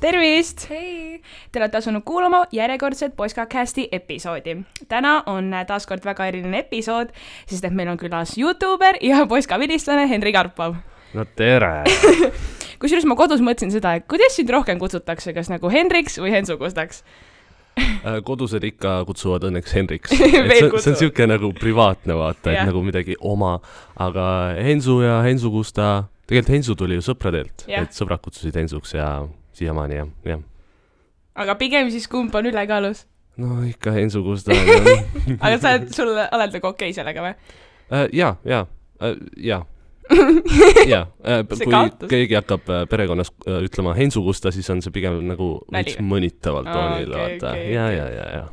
Tervist! Hei! Te olete asunud kuulama järjekordset Poskacasti episoodi. Täna on taaskord väga eriline episood, sest et meil on külas YouTuber ja Poska-vilistlane Henri Karpov. No tere! Kusjuures ma kodus mõtlesin seda, et kuidas sind rohkem kutsutakse, kas nagu Henriks või Hensu Kustaks? Kodused ikka kutsuvad õnneks Henriks. See on siuke nagu privaatne vaata, et nagu midagi oma, aga Hensu ja Hensu Kusta, tegelikult Hensu tuli ju sõpradelt, et sõbrad kutsusid Hensuks ja siiamaani jah. Aga pigem siis kumb on ülekaalus? No ikka Hensu Kusta. Aga sul oled nagu okei sellega või? Jaa. Kui keegi hakkab perekonnas ütlema Hensu Kusta, siis on see pigem nagu üks mõnitavalt toonil. Ja.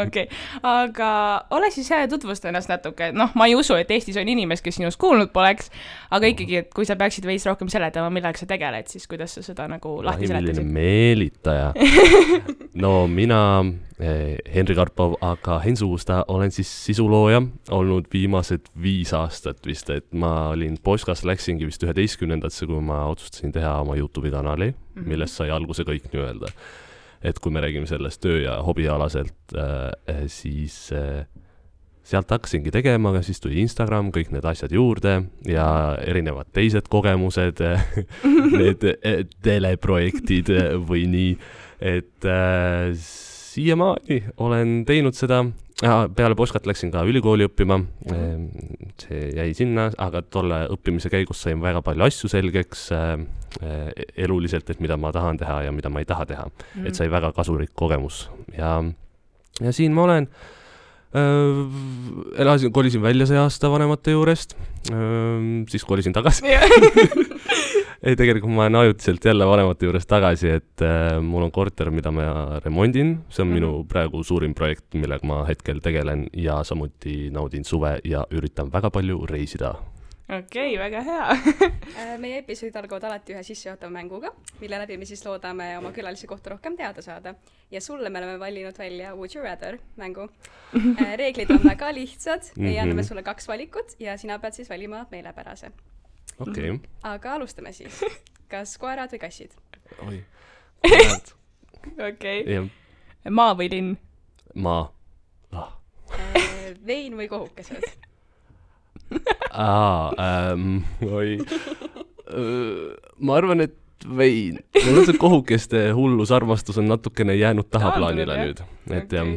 Okei, aga ole siis hea tutvusta ennast natuke. Ma ei usu, et Eestis on inimest, kes sinust kuulnud poleks, aga ikkagi, et kui sa peaksid veits rohkem seletama, millega sa tegeled, siis kuidas sa seda nagu lahti seletasid? Milline meelitaja. No mina, Henri Karpov, aga Hensu Kusta olen siis sisulooja olnud viimased 5 aastat vist, et ma olin Poskas, läksingi vist 11-ndasse, kui ma otsustasin teha oma YouTube'i kanali, millest sai alguse kõik nii-öelda. Et kui me räägime sellest töö- ja hobialaselt, siis sealt hakkasingi tegema, aga siis tuli Instagram, kõik need asjad juurde ja erinevad teised kogemused, need teleprojektid või nii, et siiamaani olen teinud seda. Peale Poskat läksin ka ülikooli õppima, see jäi sinna, aga tolle õppimise käigus sain väga palju asju selgeks eluliselt, et mida ma tahan teha ja mida ma ei taha teha. Et sai väga kasulik kogemus. Ja siin ma olen, kolisin välja see aasta vanemate juurest, siis kolisin tagasi. Ei, tegelikult ma olen ajutiselt jälle vanemate juures tagasi, et mul on korter, mida ma remondin. See on minu praegu suurim projekt, millega ma hetkel tegelen ja samuti naudin suve ja üritan väga palju reisida. Okei, väga hea. Meie episoodid algavad alati ühe sissejuhatava mänguga, mille läbi me siis loodame oma külalisi kohta rohkem teada saada. Ja sulle me oleme valinud välja Would You Rather mängu. Reeglid on väga lihtsad ja anname sulle 2 valikut ja sina pead siis valima meelepärase. Okay. Aga alustame siis. Kas koerad või kassid? Oi, koerad. Okei. Maa või linn? Maa. Vein või kohukesed? Oi. Ma arvan, et vein. Mul on see kohukeste hullus armastus on natukene jäänud tahaplaanile nüüd. Et jah.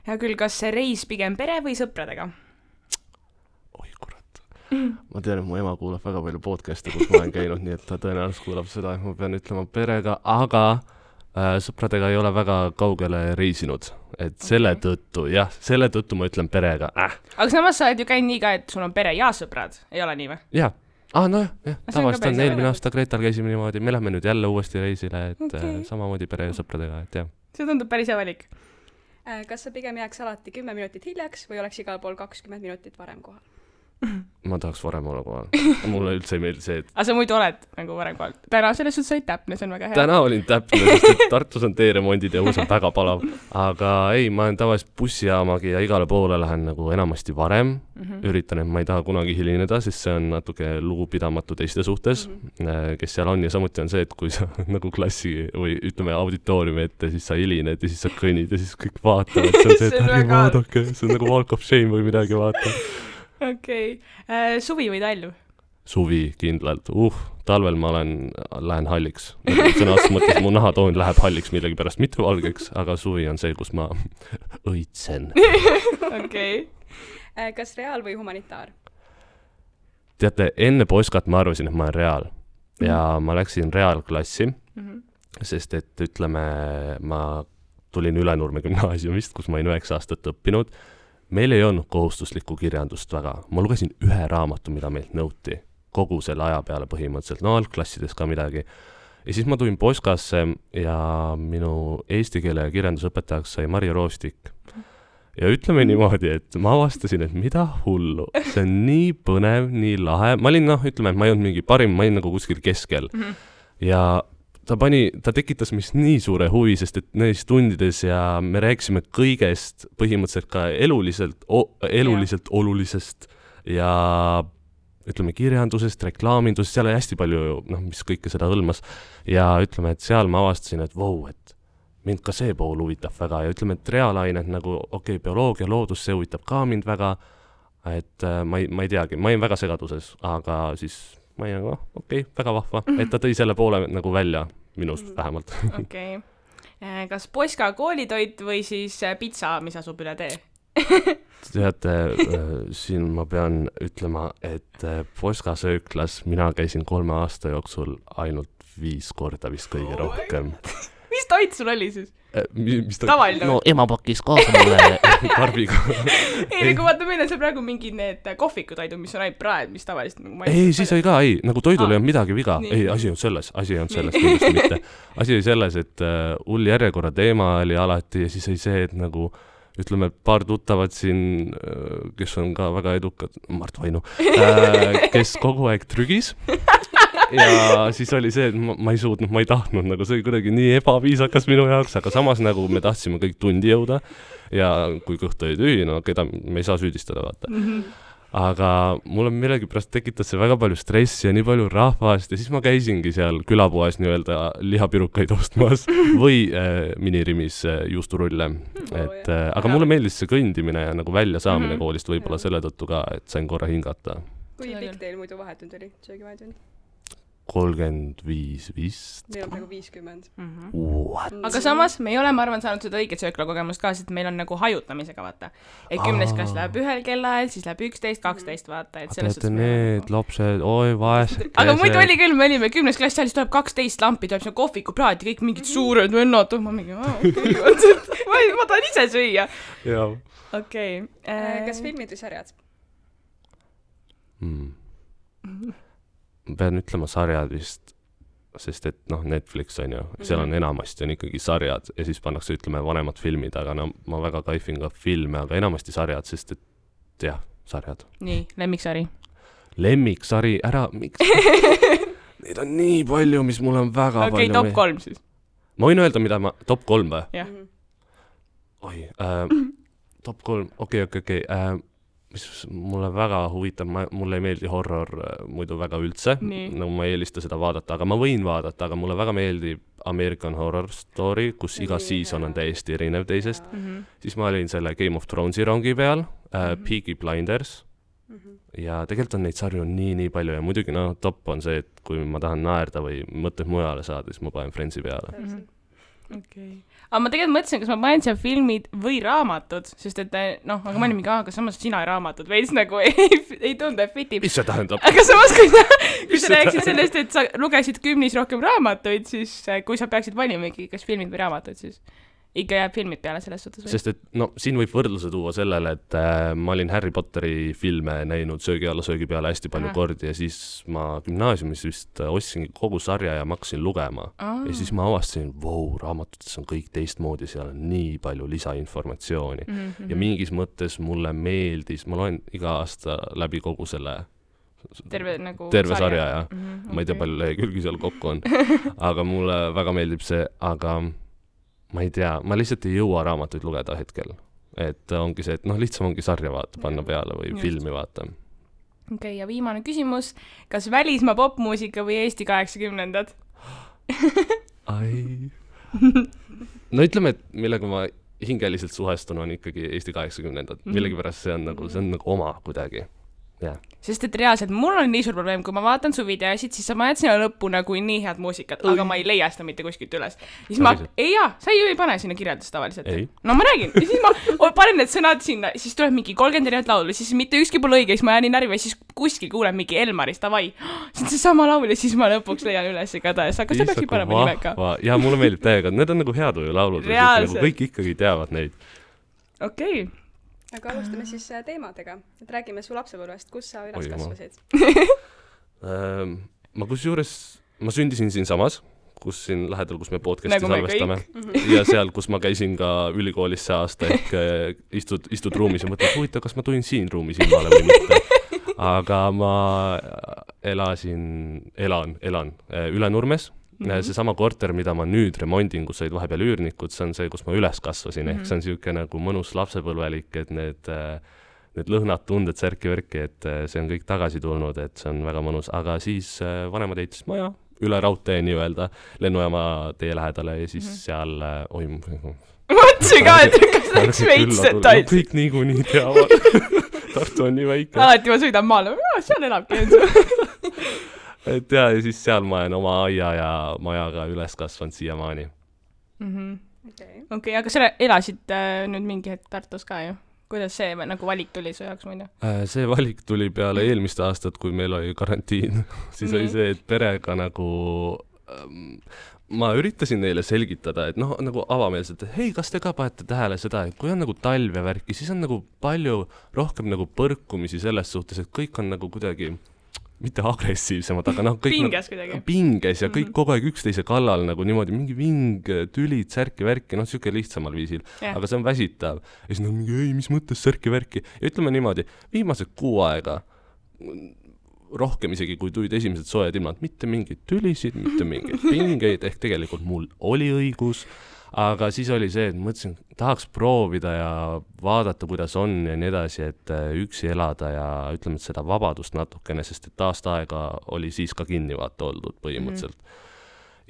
Ja küll, kas see reis pigem pere või sõpradega? Ma tean, et mu ema kuulab väga palju podcast'e, kus ma olen käinud, nii et ta tõenäoliselt kuulab seda, et ma pean ütlema perega, aga sõpradega ei ole väga kaugele reisinud. Et selle tõttu ma ütlen perega. Aga samas sa oled ju käinud nii ka, et sul on pere ja sõprad, ei ole nii või? Jah. Tavaliselt on eelmine aasta Gretal käisime niimoodi, me lähme nüüd jälle uuesti reisile, et samamoodi pere ja sõpradega, et jah. See tundub päris hea valik. Kas sa pigem jääks alati 10 minutit hiljaks või oleks igal pool 20 minutit varem kohal? Ma tahaks varem olla kohal. Mulle üldse ei meeldi see, et... Aga sa muidu oled nagu varem kohal. Täna selles suhtes olid täpne, see on väga hea. Täna olin täpne, sest et Tartus on teeremondid ja uus on väga palav. Aga ei, ma olen tavaliselt bussijaamagi ja igale poole lähen nagu enamasti varem. Üritan, et ma ei taha kunagi hilineda, sest see on natuke lugupidamatu teiste suhtes, kes seal on. Ja samuti on see, et kui sa nagu klassi või ütleme auditooriumi ette, siis sa hilined ja siis sa kõnnid ja siis kõik vaatavad. See on see, et ärge vaadake, see on nagu walk of shame või midagi vaata. Okei. Suvi või talv? Suvi kindlalt. Talvel ma lähen halliks. Sõnast mõttes mu nahatoon läheb halliks millegi pärast, mitte valgeks, aga suvi on see, kus ma õitsen. Okei. Kas reaal või humanitaar? Teate, enne Poskat ma arvasin, et ma olen reaal. Ja ma läksin reaalklassi, sest et ütleme, ma tulin Ülenurme gümnaasiumist, kus ma olin 9 aastat õppinud. Meil ei olnud kohustuslikku kirjandust väga. Ma lugesin 1 raamatu, mida meilt nõuti. Kogu selle aja peale põhimõtteliselt. No algklassides ka midagi. Ja siis ma tulin Poskasse ja minu eesti keele ja kirjandusõpetajaks sai Marja Roostik. Ja ütleme niimoodi, et ma avastasin, et mida hullu. See on nii põnev, nii lahe. Ma olin, ütleme, et ma ei olnud mingi parim, ma olin nagu kuskil keskel. Ja ta tekitas mis nii suure huvi, sest et neis tundides ja me rääkisime kõigest põhimõtteliselt ka eluliselt olulisest ja ütleme kirjandusest, reklaamindusest, seal oli hästi palju, noh, mis kõike seda hõlmas ja ütleme, et seal ma avastasin, et vau, et mind ka see pool huvitab väga ja ütleme, et reaalained nagu bioloogia, loodus, see huvitab ka mind väga, et ma ei teagi, ma olin väga segaduses, aga siis ma olin nagu, väga vahva, et ta tõi selle poole nagu välja minust vähemalt. Okei. Kas Poska koolitoit või siis pitsa, mis asub üle tee? Teate, siin ma pean ütlema, et Poska sööklas mina käisin 3 aasta jooksul ainult 5 korda vist kõige rohkem. Mis toit sul oli siis? Tavaline? No ema pakkis kaasa mulle karbiga. Ei, kui vaata, meil on seal praegu mingid need kohvikutoidud, mis on ainult praed, mis tavaliselt nagu ei, siis oli ka, nagu toidul ei olnud midagi viga. Ei, asi on selles kindlasti mitte. Asi oli selles, et hull järjekorra teema oli alati ja siis oli see, et nagu ütleme, paar tuttavad siin, kes on ka väga edukad, Mart Vainu, kes kogu aeg trügis. Ja siis oli see, et ma ei suutnud, ma ei tahtnud, nagu see oli kuidagi nii ebaviisakas minu jaoks, aga samas nagu me tahtsime kõik tundi jõuda ja kui kõht oli tühi, no keda me ei saa süüdistada, vaata. Aga mulle millegipärast tekitas see väga palju stressi ja nii palju rahvast ja siis ma käisingi seal külapoes nii-öelda lihapirukaid ostmas või minirimis juusturulle. Aga mulle meeldis see kõndimine ja nagu välja saamine koolist võib-olla selle tõttu ka, et sain korra hingata. Kui pikk teil muidu vahetund oli, söögivahetund? 35 vist. Meil on praegu 50. What? Aga samas me ei ole, ma arvan, saanud seda õiget sööklakogemust ka, sest meil on nagu hajutamisega, vaata. Et 10. klass läheb 1 kellaajal, siis läheb 11, 12, vaata. Et teate need lapsed, oi vaesed. Aga muidu oli küll, me olime 10. klass, siis tuleb 12 lampi, tuleb see kohvikupraad ja kõik mingid suured vennad, ma mingi, ma tahan ise süüa. Okei. Kas filmid või sarjad? Pean ütlema sarjad vist, sest et noh, Netflix on ju, seal on enamasti on ikkagi sarjad ja siis pannakse ütleme vanemad filmid, aga no ma väga kaifin ka filme, aga enamasti sarjad, sest et jah, sarjad. Nii, lemmiksari. Lemmiksari, miks? Neid on nii palju, mis mul on väga palju. Okei, top 3 siis. Ma võin öelda, mida ma, top 3 või? Jah. Oi, top 3, okei. Mis mulle väga huvitab, mulle ei meeldi horror muidu väga üldse, nagu ma ei eelista seda vaadata, aga ma võin vaadata, aga mulle väga meeldib American Horror Story, kus iga season on täiesti erinev teisest. Siis ma olin selle Game of Thronesi rongi peal, Peaky Blinders ja tegelikult on neid sarju nii palju ja muidugi top on see, et kui ma tahan naerda või mõtted mujale saada, siis ma panen Friendsi peale. Okei. Aga ma tegelikult mõtlesin, kas ma panen seal filmid või raamatud, sest et aga ma olin mingi, aga samas sina raamatud veits nagu ei tundu, et fitib. Mis see tähendab? Aga samas, kui sa rääksid sellest, et sa lugesid 10 rohkem raamatuid, siis kui sa peaksid valimegi, kas filmid või raamatud, siis ikka jääb filmid peale selles suhtes. Sest et siin võib võrdluse tuua sellele, et ma olin Harry Potteri filme näinud söögi alla söögi peale hästi palju kordi ja siis ma gümnaasiumis vist ostsingi kogu sarja ja ma hakkasin lugema. Ja siis ma avastasin, raamatutes on kõik teistmoodi, seal on nii palju lisainformatsiooni. Ja mingis mõttes mulle meeldis, ma loen iga aasta läbi kogu selle terve sarja ja ma ei tea, palju lehekülgi seal kokku on. Aga mulle väga meeldib see, aga ma ei tea, ma lihtsalt ei jõua raamatuid lugeda hetkel. Et ongi see, et lihtsam ongi sarja vaata, panna peale või filmi vaata. Okei, ja viimane küsimus. Kas välismaa popmuusika või Eesti 80-ndad? No ütleme, et millega ma hingeliselt suhestun on ikkagi Eesti 80-ndad. Millegipärast see on nagu oma kuidagi. Yeah. Sest et reaalselt mul on nii suur probleem, kui ma vaatan su videosid, siis ma jätan sinna lõppu nagu nii head muusikat, aga ma ei leia seda mitte kuskilt üles. Siis sa ju ei pane sinna kirjeldust tavaliselt. No ma räägin, ja siis ma panen need sõnad sinna, siis tuleb mingi 30 erinevat laulu, siis mitte ükski pole õige, siis ma jään nii närvi, siis kuskil kuulen mingi Elmarist, davai, see on see sama laul ja siis ma lõpuks leian üles igatahes, aga sa peaksid panema nimeka. Ja mulle meeldib täiega, need on nagu heatuju laulud, kõik ikkagi teavad neid. Okei. Aga alustame siis teemadega. Et räägime su lapsepõlvest, kus sa üles kasvasid? Ma sündisin siin samas, kus siin lähedal, kus me podcasti salvestame. Ja seal, kus ma käisin ka ülikoolis see aasta, ehk istud ruumis ja mõtled, huvitav, kas ma tulin siin ruumis ilmale või mitte. Aga ma elan Üle Nurmes. See sama korter, mida ma nüüd remondin, kus said vahepeal üürnikud, see on see, kus ma üles kasvasin, ehk see on siuke nagu mõnus lapsepõlvelik, et need need lõhnad, tunded, särki-värki, et see on kõik tagasi tulnud, et see on väga mõnus, aga siis vanemad ehitasid maja üle raudtee nii-öelda lennujaama tee lähedale ja siis seal mõtlesin ka, et kas läks veits details. Kõik niikuinii teavad. Tartu on nii väike. Alati ma sõidan maale, seal elabki Ensu. Et ja siis seal ma olen oma aia ja majaga üles kasvanud siiamaani. Okei, aga sa elasid nüüd mingi hetk Tartus ka ju? Kuidas see nagu valik tuli su jaoks muidu? See valik tuli peale eelmist aastat, kui meil oli karantiin. Siis oli see, et perega nagu... ma üritasin neile selgitada, et noh, nagu avameelselt, et hei, kas te ka panete tähele seda, et kui on nagu talv ja värki, siis on nagu palju rohkem nagu põrkumisi selles suhtes, et kõik on nagu kuidagi, mitte agressiivsemad, aga noh, kõik pinges kuidagi. Pinges ja kõik kogu aeg üksteise kallal nagu niimoodi, mingi ving, tülid, särki-värki, noh, siuke lihtsamal viisil, aga see on väsitav. Ja siis nagu mingi, ei, mis mõttes särki-värki? Ja ütleme niimoodi, viimased 6 aega rohkem isegi, kui tulid esimesed soojad ilmad, mitte mingeid tülisid, mitte mingeid pingeid, ehk tegelikult mul oli õigus, aga siis oli see, et mõtlesin, tahaks proovida ja vaadata, kuidas on ja nii edasi, et üksi elada ja ütleme, et seda vabadust natukene, sest et aastaaega oli siis ka kinni vaata oldud põhimõtteliselt.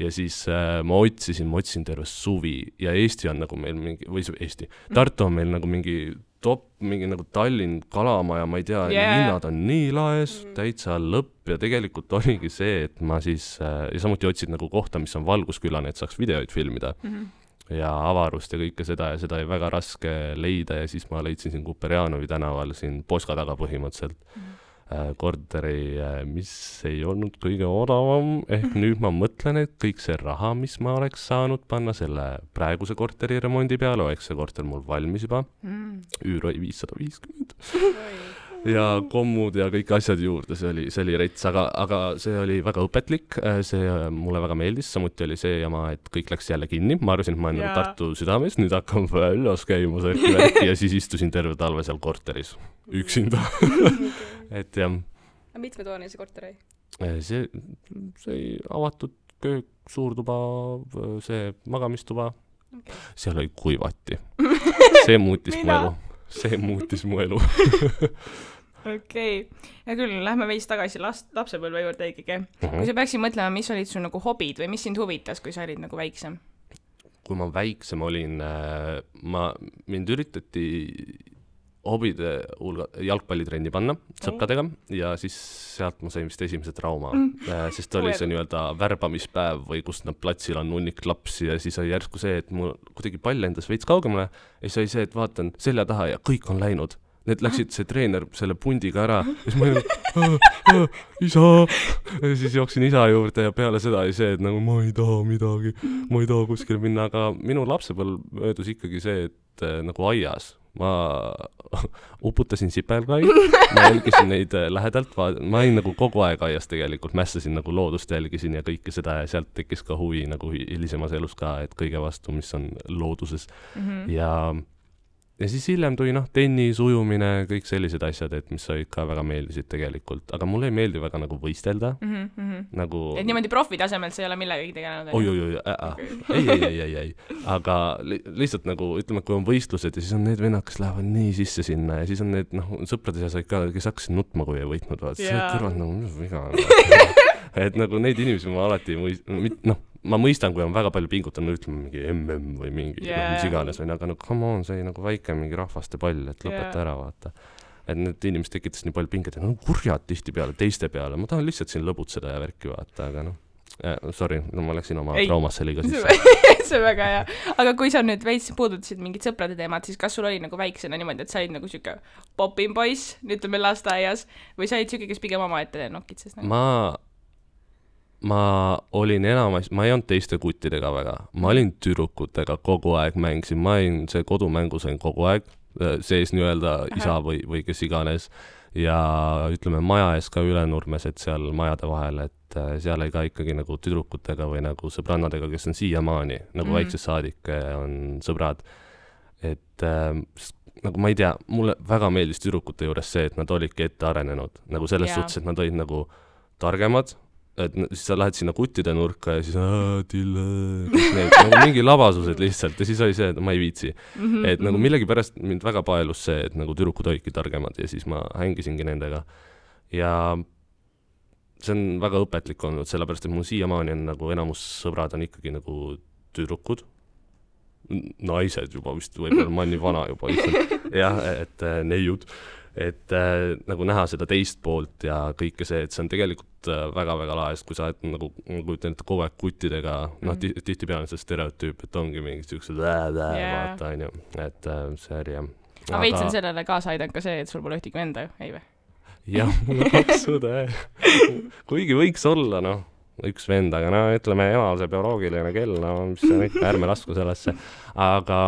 Ja siis ma otsisin terve suvi ja Eesti on nagu meil mingi, või Eesti, Tartu on meil nagu mingi mingi nagu Tallinn kalamaja, ma ei tea, hinnad on nii laes, täitsa lõpp ja tegelikult oligi see, et ma siis, ja samuti otsid nagu kohta, mis on valguskülane, et saaks videoid filmida ja avarust ja kõike seda ja seda oli väga raske leida ja siis ma leidsin siin Kuperjanovi tänaval siin Poska taga põhimõtteliselt korteri, mis ei olnud kõige odavam, ehk nüüd ma mõtlen, et kõik see raha, mis ma oleks saanud panna selle praeguse korteri remondi peale, oleks see korter mul valmis juba, üür oli 550 ja kommud ja kõik asjad juurde, see oli rets, aga see oli väga õpetlik, see mulle väga meeldis, samuti oli see jama, et kõik läks jälle kinni, ma arvasin, et ma olen nagu Tartu südames, nüüd hakkam väljas käima särki ja siis istusin terve talve seal korteris, üksinda. Et jah. Mitmetoaline see korter oli? See avatud köök, suurtuba, see magamistuba, seal oli kuivati. See muutis mu elu. Okei. Ja küll, lähme veits tagasi lapsepõlve juurde ikkagi. Kui sa peaksid mõtlema, mis olid su nagu hobid või mis sind huvitas, kui sa olid nagu väiksem? Kui ma väiksem olin, mind üritati hobide jalgpallitrenni panna sõpradega ja siis sealt ma sain vist esimese trauma, sest oli see nii-öelda värbamispäev või kus nad platsil on hunnik lapsi ja siis oli järsku see, et mul kuidagi pall endas veits kaugemale ja siis oli see, et vaatan selja taha ja kõik on läinud. Need läksid see treener selle pundiga ära ja siis ma olin, isa! Ja siis jooksin isa juurde ja peale seda oli see, et nagu ma ei taha midagi, ma ei taha kuskile minna, aga minu lapsepõlv möödus ikkagi see, et nagu aias. Ma uputasin sipelgai, ma jälgisin neid lähedalt, ma olin nagu kogu aeg aias tegelikult, mässasin nagu loodust jälgisin ja kõike seda ja sealt tekkis ka huvi nagu hilisemas elus ka, et kõige vastu, mis on looduses ja siis hiljem tuli tennis, ujumine, kõik sellised asjad, et mis olid ka väga meeldisid tegelikult, aga mulle ei meeldi väga nagu võistelda. Nagu... Et niimoodi profitasemel sa ei ole millegagi tegelenud? Ei. Aga lihtsalt nagu, ütleme, kui on võistlused ja siis on need vennad, kes lähevad nii sisse sinna ja siis on need sõprade seas ka, kes hakkasid nutma, kui ei võitnud. See kõrvad nagu, mis viga on. Et nagu neid inimesi ma alati ma mõistan, kui on väga palju pingutanud, ütleme mingi MM või mingi mis iganes, või aga come on, see nagu väike mingi rahvaste pall, et lõpeta ära vaata. Et need inimesed tekitas nii palju pinget, et kurjad tihti peale, teiste peale, ma tahan lihtsalt siin lõbutseda ja värki vaata, aga sorry, ma läksin oma traumasse liiga sisse. See on väga hea. Aga kui sa nüüd veits puudutasid mingid sõprade teemad, siis kas sul oli nagu väiksena niimoodi, et sa olid nagu siuke popin poiss, ütleme lasteaias, või sa olid siuke, kes pigem oma ette nokitses? Ma olin enamas, ma ei olnud teiste kuttidega väga, ma olin tüdrukutega kogu aeg mängisin, ma olin see kodumängu sain kogu aeg, sees nii-öelda isa või kes iganes ja ütleme maja ees ka Ülenurmes, et seal majade vahel, et seal ei ka ikkagi nagu tüdrukutega või nagu sõbrannadega, kes on siiamaani, nagu väiksest saadik on sõbrad, et nagu ma ei tea, mulle väga meeldis tüdrukute juures see, et nad olidki ette arenenud, nagu selles suhtes, et nad olid nagu targemad, et siis sa lähed sinna kuttide nurka ja siis Tille, need nagu mingi labasused lihtsalt ja siis oli see, et ma ei viitsi. Et nagu millegipärast mind väga paelus see, et nagu tüdrukud olidki targemad ja siis ma hängisingi nendega. Ja see on väga õpetlik olnud, sellepärast, et mul siiamaani on nagu enamus sõbrad on ikkagi nagu tüdrukud. Naised juba vist, võib-olla ma olen nii vana juba lihtsalt. Jah, et neiud. Et nagu näha seda teist poolt ja kõike see, et see on tegelikult väga-väga laes, kui sa oled nagu ütlen, et kogu aeg kuttidega, noh, tihti peale see stereotüüp, et ongi mingid siuksed vaata, on ju, et see oli jah. Aga veits on sellele kaasa aidanud ka see, et sul pole ühtegi venda, ei või? Jah, mul on 2 õde. Kuigi võiks olla, noh, üks vend, aga no ütleme emal see bioloogiline kell, no mis see on ikka, ärme lasku sellesse. Aga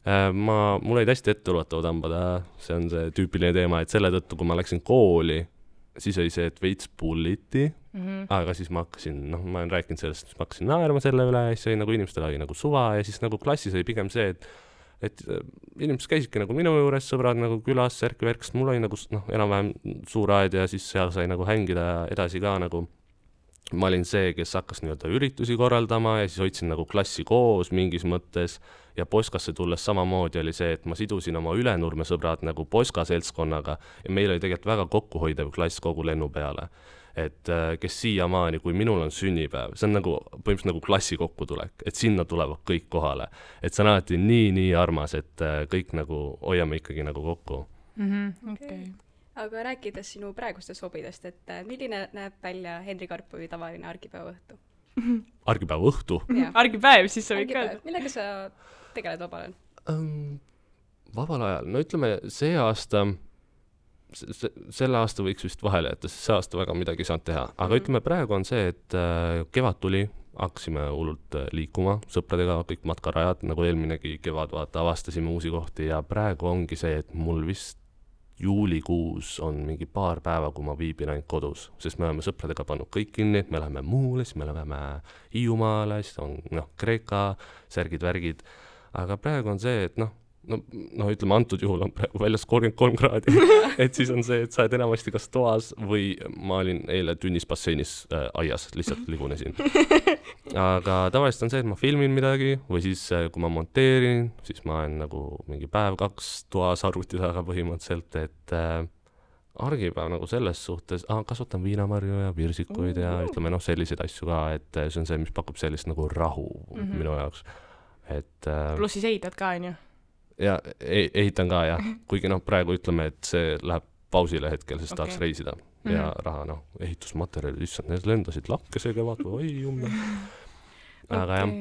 mul olid hästi etteulatav tambada, see on see tüüpiline teema, et selle tõttu, kui ma läksin kooli, siis oli see, et veits bulliti, aga siis ma hakkasin, noh, ma olen rääkinud sellest, siis ma hakkasin naerma selle üle ja siis oli nagu inimestel oli nagu suva ja siis nagu klassis oli pigem see, et inimesed käisidki nagu minu juures, sõbrad nagu külas, särk-värk, sest mul oli nagu, noh, enam-vähem suur aed ja siis seal sai nagu hängida edasi ka nagu ma olin see, kes hakkas nii-öelda üritusi korraldama ja siis hoidsin nagu klassi koos mingis mõttes ja Poskasse tulles samamoodi oli see, et ma sidusin oma Ülenurme sõbrad nagu Poska seltskonnaga ja meil oli tegelikult väga kokkuhoidev klass kogu lennu peale. Et kes siiamaani, kui minul on sünnipäev, see on nagu põhimõtteliselt nagu klassi kokkutulek, et sinna tulevad kõik kohale. Et see on alati nii armas, et kõik nagu hoiame ikkagi nagu kokku. Okay. Aga rääkides sinu praegustest hobidest, et milline näeb välja Henri Karpovi tavaline argipäeva õhtu? Argipäeva õhtu? Argipäev, siis sa võid ka. Millega sa tegeled vabal ajal? Vabal ajal? No ütleme, see aasta, selle aasta võiks vist vahele jätta, sest see aasta väga midagi ei saanud teha. Aga ütleme, praegu on see, et kevad tuli, hakkasime hullult liikuma sõpradega, kõik matkarajad, nagu eelminegi kevad vaata, avastasime uusi kohti ja praegu ongi see, et mul vist juulikuus on mingi paar päeva, kui ma viibin ainult kodus, sest me oleme sõpradega pannud kõik kinni, me läheme Muule, siis me läheme Hiiumaale, siis on Kreeka, särgid-värgid, aga praegu on see, et noh, ütleme, antud juhul on praegu väljas 33 kraadi, et siis on see, et sa oled enamasti kas toas või ma olin eile tünnis basseinis aias, lihtsalt ligunesin. Aga tavaliselt on see, et ma filmin midagi või siis kui ma monteerin, siis ma olen nagu mingi päev-2 toas arvuti taga põhimõtteliselt, et argipäev nagu selles suhtes, kasvatan viinamarju ja virsikuid ja ütleme selliseid asju ka, et see on see, mis pakub sellist nagu rahu minu jaoks. Pluss siis ehitad ka, on ju? Ja ehitan ka, jah. Kuigi praegu ütleme, et see läheb pausile hetkel, sest tahaks reisida ja raha, ehitusmaterjalid, issand, need lendasid lakkese kevad või oi jumme. Aga jah.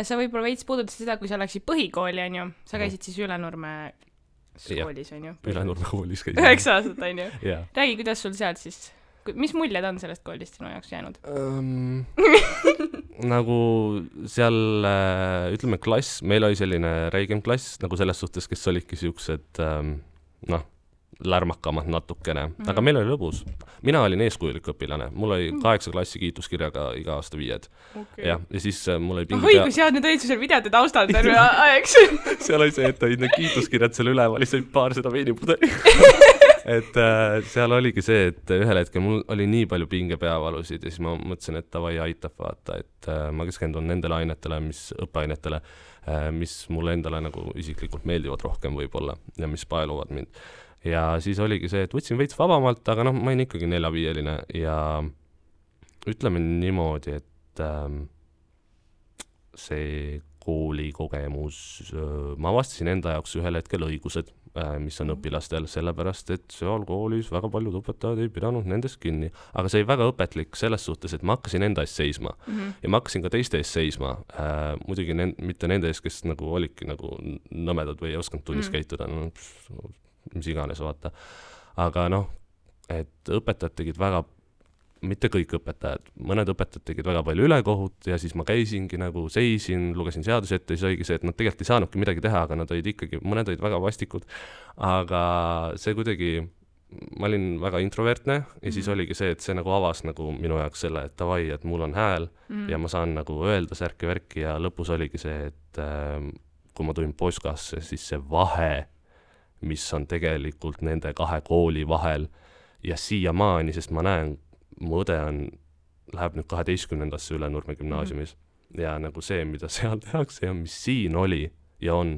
Sa võib-olla veits puudutasid seda, kui sa läksid põhikooli, on ju? Sa käisid siis Ülenurme koolis, on ju? Ülenurme koolis käisid. 9 aastat, on ju? Räägi, kuidas sul sealt siis, mis muljed on sellest koolist sinu jaoks jäänud? Nagu seal, ütleme klass, meil oli selline räigem klass, nagu selles suhtes, kes olidki siuksed, lärmakamad natukene, aga meil oli lõbus. Mina olin eeskujulik õpilane, mul oli 8 klassi kiituskirjaga iga aasta 5. Ja siis mul oli pingi kui sead nüüd olid seal videote taustal terve aeg. Seal oli see, et olid need kiituskirjad seal üleval, siis paar seda veinipudeli. Et seal oligi see, et ühel hetkel mul oli nii palju pingepeavalusid ja siis ma mõtlesin, et tavai aitab vaata, et ma keskendun nendele ainetele, õppeainetele, mis mulle endale nagu isiklikult meeldivad rohkem võib-olla ja mis paeluvad mind. Ja siis oligi see, et võtsin veits vabamalt, aga ma olin ikkagi 4-5-line ja ütleme niimoodi, et see koolikogemus, ma avastasin enda jaoks ühel hetkel õigused, mis on õpilastel, sellepärast, et seal koolis väga paljud õpetajad ei pidanud nendest kinni. Aga see oli väga õpetlik selles suhtes, et ma hakkasin enda eest seisma ja ma hakkasin ka teiste eest seisma. Muidugi mitte nende eest, kes nagu olidki nagu nõmedad või ei osanud tunnis käituda, mis iganes vaata. Aga et õpetajad tegid väga, mitte kõik õpetajad, mõned õpetajad tegid väga palju ülekohut ja siis ma käisingi nagu seisin, lugesin seadusi ette ja siis oligi see, et nad tegelikult ei saanudki midagi teha, aga nad olid ikkagi, mõned olid väga vastikud, aga see kuidagi, ma olin väga introvertne ja siis oligi see, et see nagu avas nagu minu jaoks selle, et tavai, et mul on hääl ja ma saan nagu öelda särki-värki ja lõpus oligi see, et kui ma tulin Poskasse, siis see vahe, mis on tegelikult nende 2 kooli vahel ja siiamaani, sest ma näen, mu õde läheb nüüd 12. Ülenurme gümnaasiumis ja nagu see, mida seal tehakse ja mis siin oli ja on,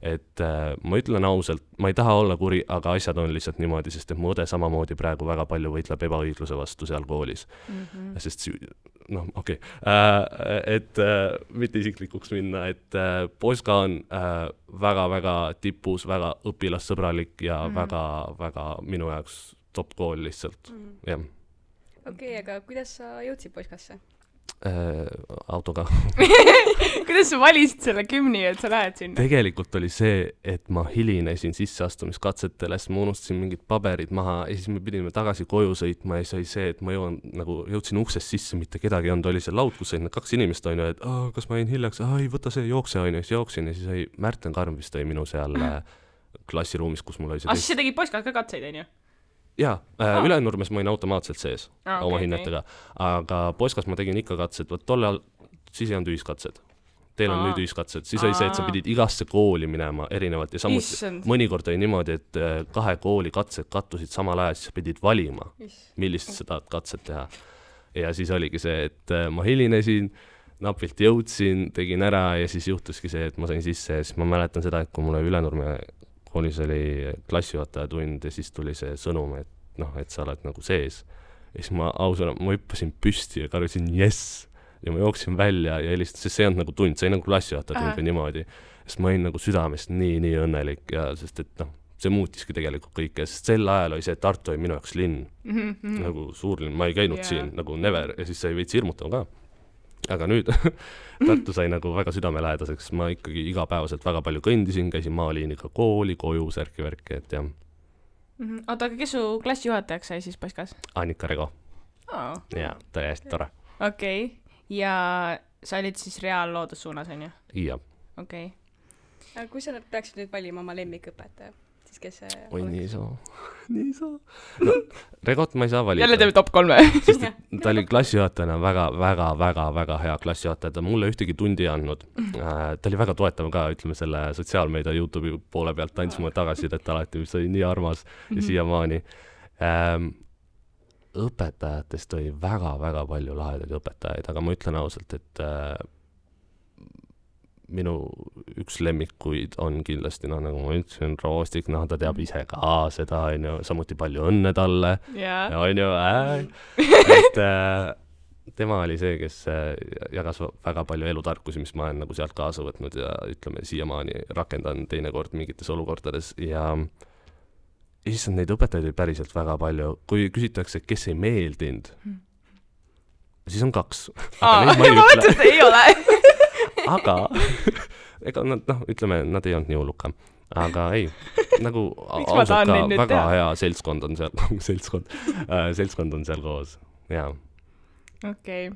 et ma ütlen ausalt, ma ei taha olla kuri, aga asjad on lihtsalt niimoodi, sest et mu õde samamoodi praegu väga palju võitleb ebaõigluse vastu seal koolis. Sest noh, okei. Et mitte isiklikuks minna, et Poska on väga-väga tipus, väga õpilassõbralik ja väga-väga minu jaoks top kool lihtsalt, jah. Okei, aga kuidas sa jõudsid Poskasse? Autoga. Kuidas sa valisid selle kümni, et sa lähed sinna? Tegelikult oli see, et ma hilinesin sisseastumiskatsetele, sest ma unustasin mingid paberid maha ja siis me pidime tagasi koju sõitma ja siis oli see, et ma jõudsin uksest sisse, mitte kedagi on, oli see laud, kus olid 2 inimest, on ju, et kas ma jäin hiljaks, ei võta see, jookse, on ju, siis jooksin ja siis oli Märten Karm vist oli minu seal klassiruumis, kus mul oli see siis sa tegid Poskas ka katseid, on ju? Jaa, Ülenurmes ma olin automaatselt sees oma hinnetega, aga Poskas ma tegin ikka katsed, tollal siis ei olnud ühiskatsed. Teil on nüüd ühiskatsed, siis oli see, et sa pidid igasse kooli minema erinevalt ja samuti mõnikord oli niimoodi, et 2 kooli katsed kattusid samal ajal, siis pidid valima, millist sa tahad katset teha. Ja siis oligi see, et ma hilinesin, napilt jõudsin, tegin ära ja siis juhtuski see, et ma sain sisse ja siis ma mäletan seda, et kui mulle Ülenurme koolis oli klassijuhataja tund ja siis tuli see sõnum, et noh, et sa oled nagu sees. Ja siis ma ausana, ma hüppasin püsti ja karjusin yes! Ja ma jooksin välja ja helistan, sest see on nagu tund, see ei nagu klassijuhataja tund või niimoodi. Sest ma olin nagu südamest nii õnnelik ja sest et noh, see muutiski tegelikult kõike, sest sel ajal oli see, et Tartu oli minu jaoks linn. Nagu suur linn, ma ei käinud siin nagu never ja siis sai veits hirmutav ka. Aga nüüd Tartu sai nagu väga südamelähedaseks, ma ikkagi igapäevaselt väga palju kõndisin, käisin maaliiniga kooli, koju, särki-värki, et jah. Oota, aga kes su klassijuhatajaks sai siis Poskas? Annika Rego. Ja, ta oli hästi tore. Okei, ja sa olid siis reaalloodussuunas, on ju? Jah. Okei. Aga kui sa peaksid nüüd valima oma lemmikõpetaja, siis kes see oi, nii saa. No, Regot ma ei saa valida. Jälle teeme top 3. Sest ta oli klassijuhatajana väga hea klassijuhataja, ta mulle ühtegi tundi andnud. Ta oli väga toetav ka, ütleme selle sotsiaalmeedia YouTube'i poole pealt, andis mulle tagasidet alati, mis oli nii armas ja siiamaani. Õpetajatest oli väga palju lahedaid õpetajaid, aga ma ütlen ausalt, et minu üks lemmikuid on kindlasti, noh, nagu ma ütlesin, Roostik, noh, ta teab ise ka seda, on ju, samuti palju õnne talle, on ju, et tema oli see, kes jagas väga palju elutarkusi, mis ma olen nagu sealt kaasa võtnud ja ütleme, siiamaani rakendan teinekord mingites olukordades ja issand, neid õpetajaid oli päriselt väga palju. Kui küsitakse, kes ei meeldinud, siis on 2. Ma mõtlen, et ei ole. Aga, ega nad, noh, ütleme, nad ei olnud nii hulluka. Aga ei, nagu ausalt ka väga hea seltskond on seal, seltskond on seal koos, jaa. Okei.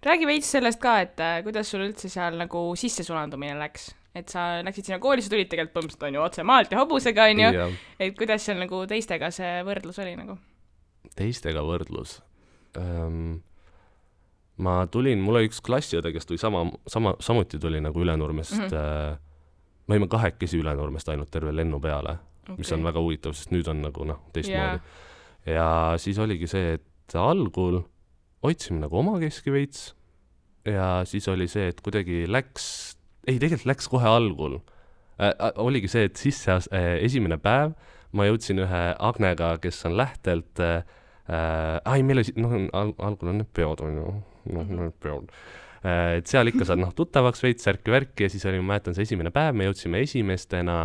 Räägi veits sellest ka, et kuidas sul üldse seal nagu sissesulandumine läks? Et sa läksid sinna kooli, sa tulid tegelikult põhimõtteliselt on ju otse maalt ja hobusega, on ju. Et kuidas seal nagu teistega see võrdlus oli nagu? Teistega võrdlus? Ma tulin, mul oli üks klassiõde, kes tuli samuti tuli nagu Ülenurmest. Me olime 2 Ülenurmest ainult terve lennu peale, mis on väga huvitav, sest nüüd on nagu teistmoodi. Ja siis oligi see, et algul otsime nagu omakeski veits ja siis oli see, et kuidagi tegelikult läks kohe algul. Oligi see, et esimene päev ma jõudsin ühe Agnega, kes on lähtelt meil oli, algul on need peod, on ju. Need peod. Et seal ikka saad tuttavaks veits, särki-värki ja siis oli, ma mäletan see esimene päev, me jõudsime esimestena,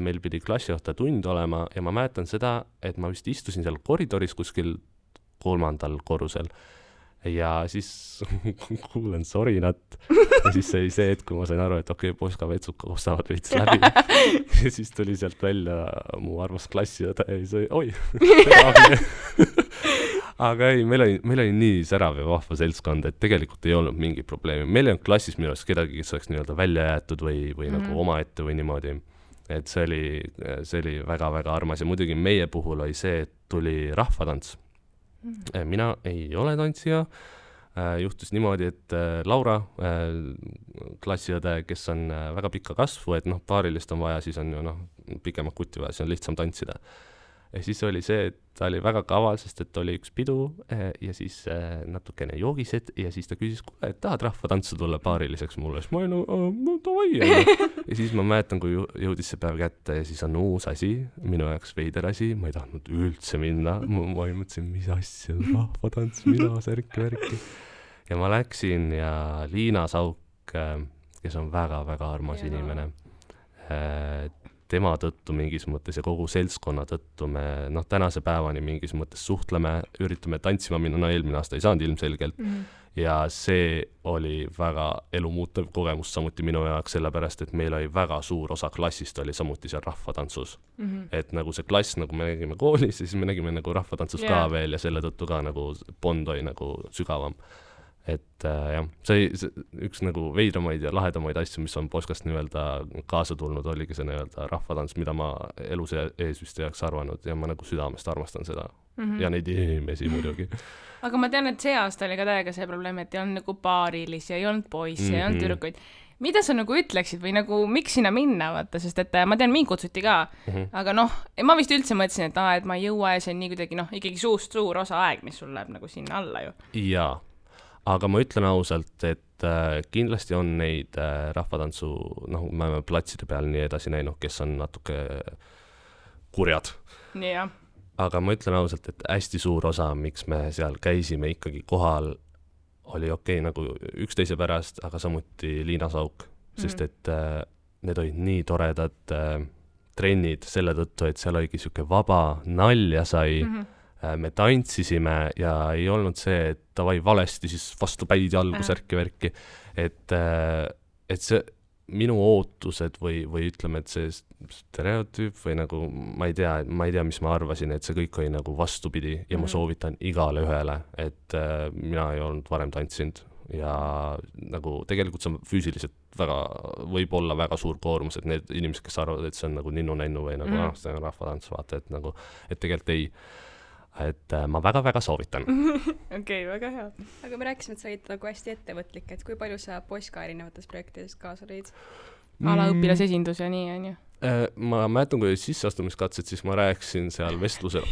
meil pidi klassijuhataja tund olema ja ma mäletan seda, et ma vist istusin seal koridoris kuskil 3. korrusel ja siis kuulen sorinat ja siis see oli see, et kui ma sain aru, et okei, Poska vetsud koostavad veits läbi ja siis tuli sealt välja mu armas klassiõde ja siis oli, aga ei, meil oli nii särav ja vahva seltskond, et tegelikult ei olnud mingi probleemi. Meil ei olnud klassis minu arust kedagi, kes oleks nii-öelda välja jäetud või nagu omaette või niimoodi. Et see oli väga-väga armas ja muidugi meie puhul oli see, et tuli rahvatants. Mina ei ole tantsija. Juhtus niimoodi, et Laura, klassiõde, kes on väga pikka kasvu, et paarilist on vaja, siis on ju pikemad kuti vaja, siis on lihtsam tantsida. ja siis oli see, et ta oli väga kaval, sest et oli üks pidu ja siis natukene joogised ja siis ta küsis, kuule, et tahad rahvatantsu tulla paariliseks mulle, siis ma olin no davai. Ja siis ma mäletan, kui jõudis see päev kätte ja siis on uus asi, minu jaoks veider asi, ma ei tahtnud üldse minna, ma mõtlesin, mis asja, rahvatants, mida, särki. Ja ma läksin ja Liina Sauk, kes on väga-väga armas inimene, tema tõttu mingis mõttes ja kogu seltskonna tõttu me tänase päevani mingis mõttes suhtleme, üritame tantsima minna, eelmine aasta ei saanud ilmselgelt ja see oli väga elumuutev kogemus samuti minu jaoks, sellepärast, et meil oli väga suur osa klassist oli samuti seal rahvatantsus. Et nagu see klass, nagu me nägime koolis, siis me nägime nagu rahvatantsus ka veel ja selle tõttu ka nagu bond oli nagu sügavam. Et jah, see üks nagu veidramaid ja lahedamaid asju, mis on Poskast nii-öelda kaasa tulnud, oligi see nii-öelda rahvatants, mida ma elus ees vist ei oleks arvanud ja ma nagu südamest armastan seda. Ja neid inimesi muidugi. Aga ma tean, et see aasta oli ka täiega see probleem, et ei olnud nagu paarilisi, ei olnud poisse, ei olnud tüdrukuid. Mida sa nagu ütleksid või nagu miks sinna minna, vaata, sest et ma tean, mind kutsuti ka, aga ma vist üldse mõtlesin, et ma ei jõua ja see on nii kuidagi ikkagi suur osa aeg, mis sul läheb nagu sinna alla ju. Jaa. Aga ma ütlen ausalt, et kindlasti on neid rahvatantsu, me oleme platside peal nii edasi näinud, kes on natuke kurjad. Nii jah. Aga ma ütlen ausalt, et hästi suur osa, miks me seal käisime ikkagi kohal, oli okei nagu üksteise pärast, aga samuti Liina Sauk, sest et need olid nii toredad trennid selle tõttu, et seal oligi siuke vaba nalja sai, me tantsisime ja ei olnud see, et davai valesti, siis vastu päid jalgu särki-värki. Et see minu ootused või ütleme, et see stereotüüp või nagu, ma ei tea, mis ma arvasin, et see kõik oli nagu vastupidi ja ma soovitan igale ühele, et mina ei olnud varem tantsinud ja nagu tegelikult see on füüsiliselt võib olla väga suur koormus, et need inimesed, kes arvavad, et see on nagu ninnu-nännu või nagu see on rahvatants, vaata, et tegelikult ei. Et ma väga-väga soovitan. Okei, väga hea. Aga me rääkisime, et sa olid nagu hästi ettevõtlik, et kui palju sa Poska erinevates projektides kaasa lõid? Alaõpilasesindus ja nii, on ju? Ma mäletan, kui sisseastumiskatsed, siis ma rääkisin seal vestlusel,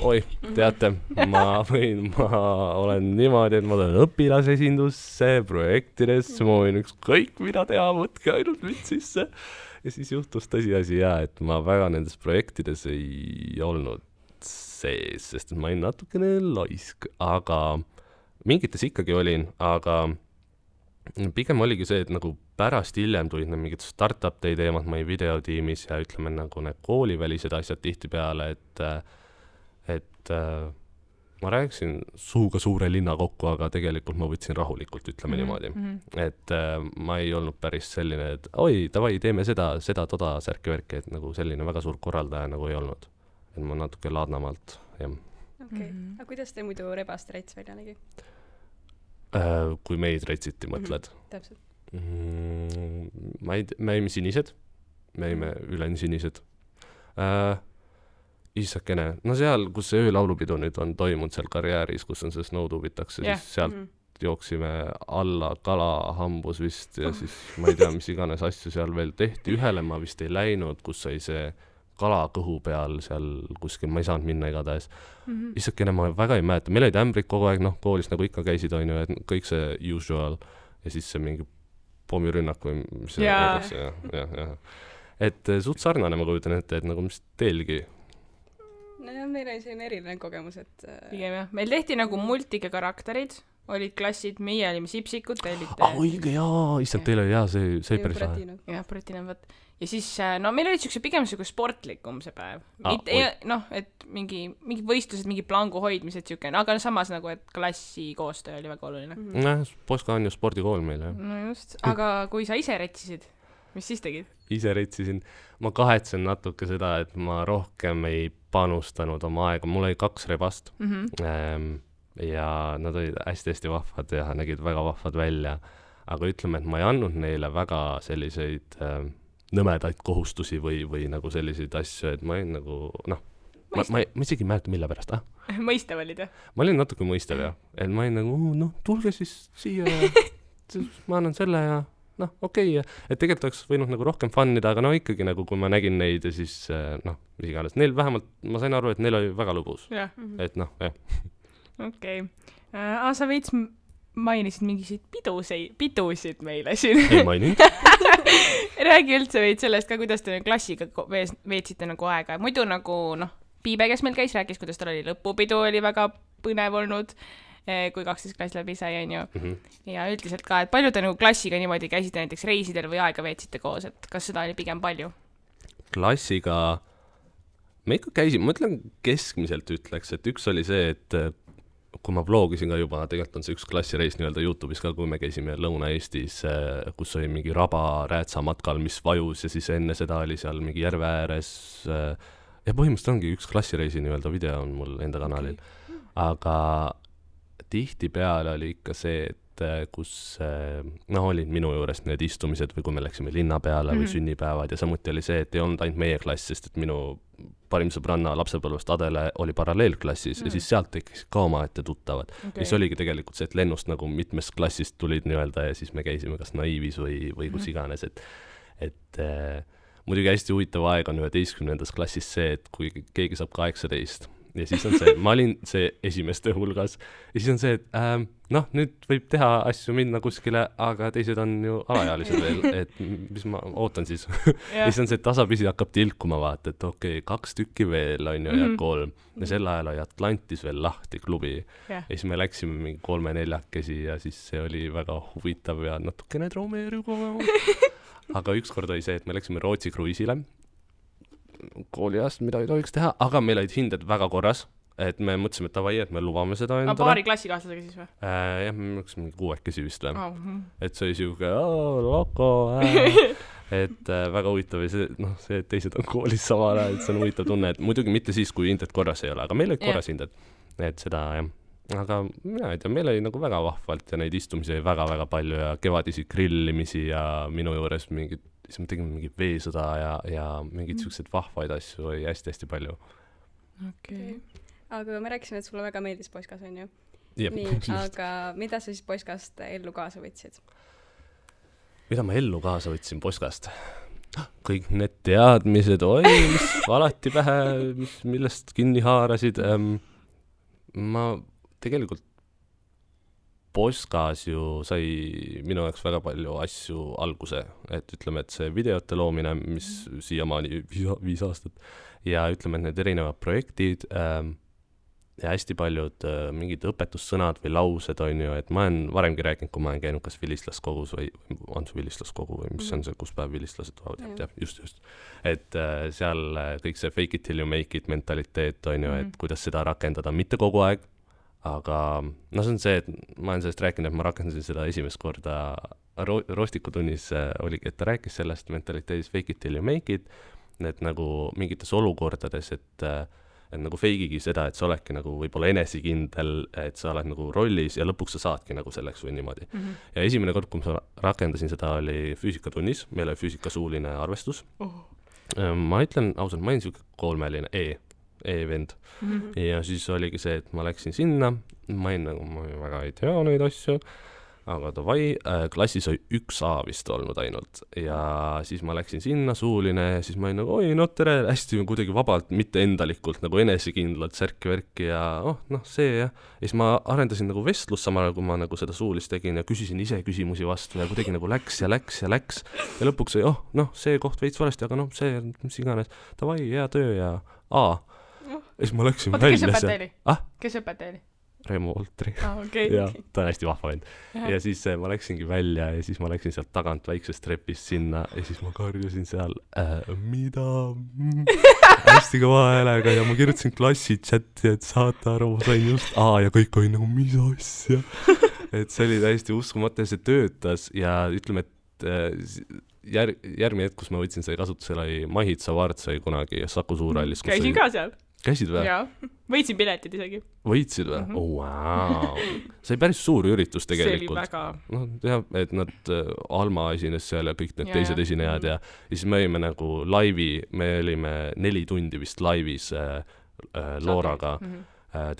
teate, ma olen niimoodi, et ma olen õpilasesindusse, projektidesse, ma võin ükskõik mida teha, võtke ainult mind sisse. Ja siis juhtus tõsiasi et ma väga nendes projektides ei olnud sees, sest ma olin natukene laisk, aga mingites ikkagi olin, aga pigem oligi see, et nagu pärast hiljem tulid need mingid startup-day teemad, ma olin videotiimis ja ütleme nagu need koolivälised asjad tihti peale, et ma rääkisin suuga suure linna kokku, aga tegelikult ma võtsin rahulikult, ütleme niimoodi. Et ma ei olnud päris selline, et davai, teeme seda, toda särki-värki, et nagu selline väga suur korraldaja nagu ei olnud. Et ma natuke laadnamalt, jah. Okei. Aga kuidas te muidu rebast rets välja nägi? Kui meid retsiti, mõtled? Täpselt. Me jäime sinised. Me jäime üleni sinised. Issakene. No seal, kus see öölaulupidu nüüd on toimunud seal karjääris, kus on see snowtubitakse, siis sealt jooksime alla kalahambus vist ja siis ma ei tea, mis iganes asju seal veel tehti. Ühele ma vist ei läinud, kus sai see kala kõhu peal seal kuskil, ma ei saanud minna igatahes. Issakene ma väga ei mäleta, meil olid ämbrid kogu aeg, koolis nagu ikka käisid, on ju, et kõik see usual ja siis see mingi pommirünnak või mis see öeldakse. Ja. Et suht sarnane ma kujutan ette, et nagu mis teilgi. No jah, meil oli selline eriline kogemus, et... Pigem jah, meil tehti nagu multike karakterid, olid klassid, meie olime sipsikud, te olite... õige, issand, teil oli see päris lahe. Jah, Pratina, võt. Ja siis, meil olid pigem sportlikum see päev. Et mingi võistlused, mingi plangu hoidmised, aga samas nagu, et klassi koostöö oli väga oluline. Poska on ju spordikool meil, jah. No just, aga kui sa ise retsisid, mis siis tegid? Ise retsisin. Ma kahetsen natuke seda, et ma rohkem ei panustanud oma aega. Mul oli 2 rebast ja nad olid hästi-hästi vahvad ja nägid väga vahvad välja. Aga ütleme, et ma ei andnud neile väga selliseid... nõmedaid kohustusi või nagu selliseid asju, et ma olin nagu, ma isegi ei mäleta, mille pärast, Mõistav olid, jah? Ma olin natuke mõistav, jah. Et ma olin nagu, tulge siis siia ja ma annan selle ja noh, okei, et tegelikult oleks võinud nagu rohkem fun-ida, aga no ikkagi nagu kui ma nägin neid ja siis noh, mis iganes, neil vähemalt, ma sain aru, et neil oli väga lõbus. Et noh, jah. Okei. Sa veits mainisid mingisuguseid pidusid meile siin. Ei maininud. Räägi üldse veits sellest ka, kuidas te klassiga veetsite nagu aega. Muidu nagu, noh, Piibe, kes meil käis, rääkis, kuidas tal oli lõpupidu, oli väga põnev olnud, kui 12 klass läbi sai, on ju. Ja üldiselt ka, et palju te nagu klassiga niimoodi käisite näiteks reisidel või aega veetsite koos, et kas seda oli pigem palju? Klassiga me ikka käisime, ma ütlen keskmiselt ütleks, et üks oli see, et kui ma vlogisin ka juba, tegelikult on see üks klassireis nii-öelda YouTube'is ka, kui me käisime Lõuna-Eestis, kus oli mingi raba räätsa matkal, mis vajus ja siis enne seda oli seal mingi järve ääres ja põhimõtteliselt ongi üks klassireisi nii-öelda video on mul enda kanalil. Aga tihtipeale oli ikka see, et kus noh, olid minu juures need istumised või kui me läksime linna peale või sünnipäevad ja samuti oli see, et ei olnud ainult meie klass, sest et minu parim sõbranna lapsepõlvest Adele oli paralleelklassis ja siis sealt tekkis ka omaette tuttavad. Ja siis oligi tegelikult see, et lennust nagu mitmest klassist tulid nii-öelda ja siis me käisime kas naiivis või kus iganes, et muidugi hästi huvitav aeg on 11. klassis see, et kui keegi saab 18 ja siis on see, ma olin see esimeste hulgas ja siis on see, et noh, nüüd võib teha asju minna kuskile, aga teised on ju alaealised veel, et mis ma ootan siis. Ja siis on see, et tasapisi hakkab tilkuma vaata, et okei, 2 tükki veel on ju ja 3 ja sel ajal oli Atlantis veel lahti klubi ja siis me läksime mingi 3-4 ja siis see oli väga huvitav ja natukene traumeeriv. Aga ükskord oli see, et me läksime Rootsi kruiisile kooliajast, mida ei tohiks teha, aga meil olid hinded väga korras, et me mõtlesime, et davai, et me lubame seda endale. Paari klassikaaslasega siis või? Jah, me läksime mingi 6 siis vist või. Et see oli siuke, loko, et väga huvitav ja see, noh, see, et teised on koolis samal ajal, et see on huvitav tunne, et muidugi mitte siis, kui hinded korras ei ole, aga meil olid korras hinded, et seda jah. Aga mina ei tea, meil oli nagu väga vahvalt ja neid istumisi oli väga-väga palju ja kevadisi grillimisi ja minu juures mingid, siis me tegime mingi veesõda ja mingid siuksed vahvaid asju oli hästi-hästi palju. Okay. Aga me rääkisime, et sulle väga meeldis Poiskas, on ju? Jep, nii, aga mida sa siis Poiskast ellu kaasa võtsid? Mida ma ellu kaasa võtsin Poiskast? Kõik need teadmised, mis alati pähe, millest kinni haarasid. Ma tegelikult Poiskas ju sai minu jaoks väga palju asju alguse, et ütleme, et see videote loomine, mis siiamaani 5 aastat ja ütleme, et need erinevad projektid ja hästi paljud mingid õpetussõnad või laused on ju, et ma olen varemgi rääkinud, kui ma olen käinud kas vilistlaskogus või on see vilistlaskogu või mis on see, kus päev vilistlased tulevad, just. Et seal kõik see fake it till you make it mentaliteet on ju, et kuidas seda rakendada, mitte kogu aeg, aga no see on see, et ma olen sellest rääkinud, et ma rakendasin seda esimest korda Roostikutunnis oligi, et ta rääkis sellest mentaliteedis fake it till you make it, et nagu mingites olukordades, et nagu feigigi seda, et sa oledki nagu võib-olla enesekindel, et sa oled nagu rollis ja lõpuks sa saadki nagu selleks või niimoodi. Ja esimene kord, kui ma rakendasin seda, oli füüsikatunnis, meil oli füüsikasuuline arvestus. Ma ütlen ausalt, ma olin siuke 3-line E-vend. Ja siis oligi see, et ma läksin sinna, ma väga ei tea neid asju, aga davai, klassis oli 1 A vist olnud ainult ja siis ma läksin sinna, suuline ja siis ma olin nagu, oi, no tere, hästi kuidagi vabalt, mitte endalikult, nagu enesekindlalt särki-värki ja see ja siis ma arendasin nagu vestlust samal ajal, kui ma nagu seda suulist tegin ja küsisin ise küsimusi vastu ja kuidagi nagu läks ja lõpuks oli, see koht veits valesti, aga see, mis iganes, davai, hea töö ja A. Ja siis ma läksin välja. Kes õpetaja oli? Reemo Oltri. Okay. Ja ta on hästi vahva vend. Ja siis ma läksingi välja ja siis ma läksin sealt tagant väiksest trepist sinna ja siis ma karjusin seal mida hästi kõva häälega ja ma kirjutasin klassi chati, et saate aru, ma sain just ja kõik oli nagu mis asja. Et see oli täiesti uskumatu ja see töötas ja ütleme, et järgmine hetk, kus ma võtsin selle kasutusele, oli Mahitsa Vaart sai kunagi Saku Suurhallis. Käisin ka seal. Käisid või? Jaa, võitsin piletid isegi. Võitsid või? Wow. See oli päris suur üritus tegelikult. See oli väga... jah, et nad Alma esines seal ja kõik need teised esinejad ja siis me olime nagu laivi, me olime 4 tundi vist laivis Looraga,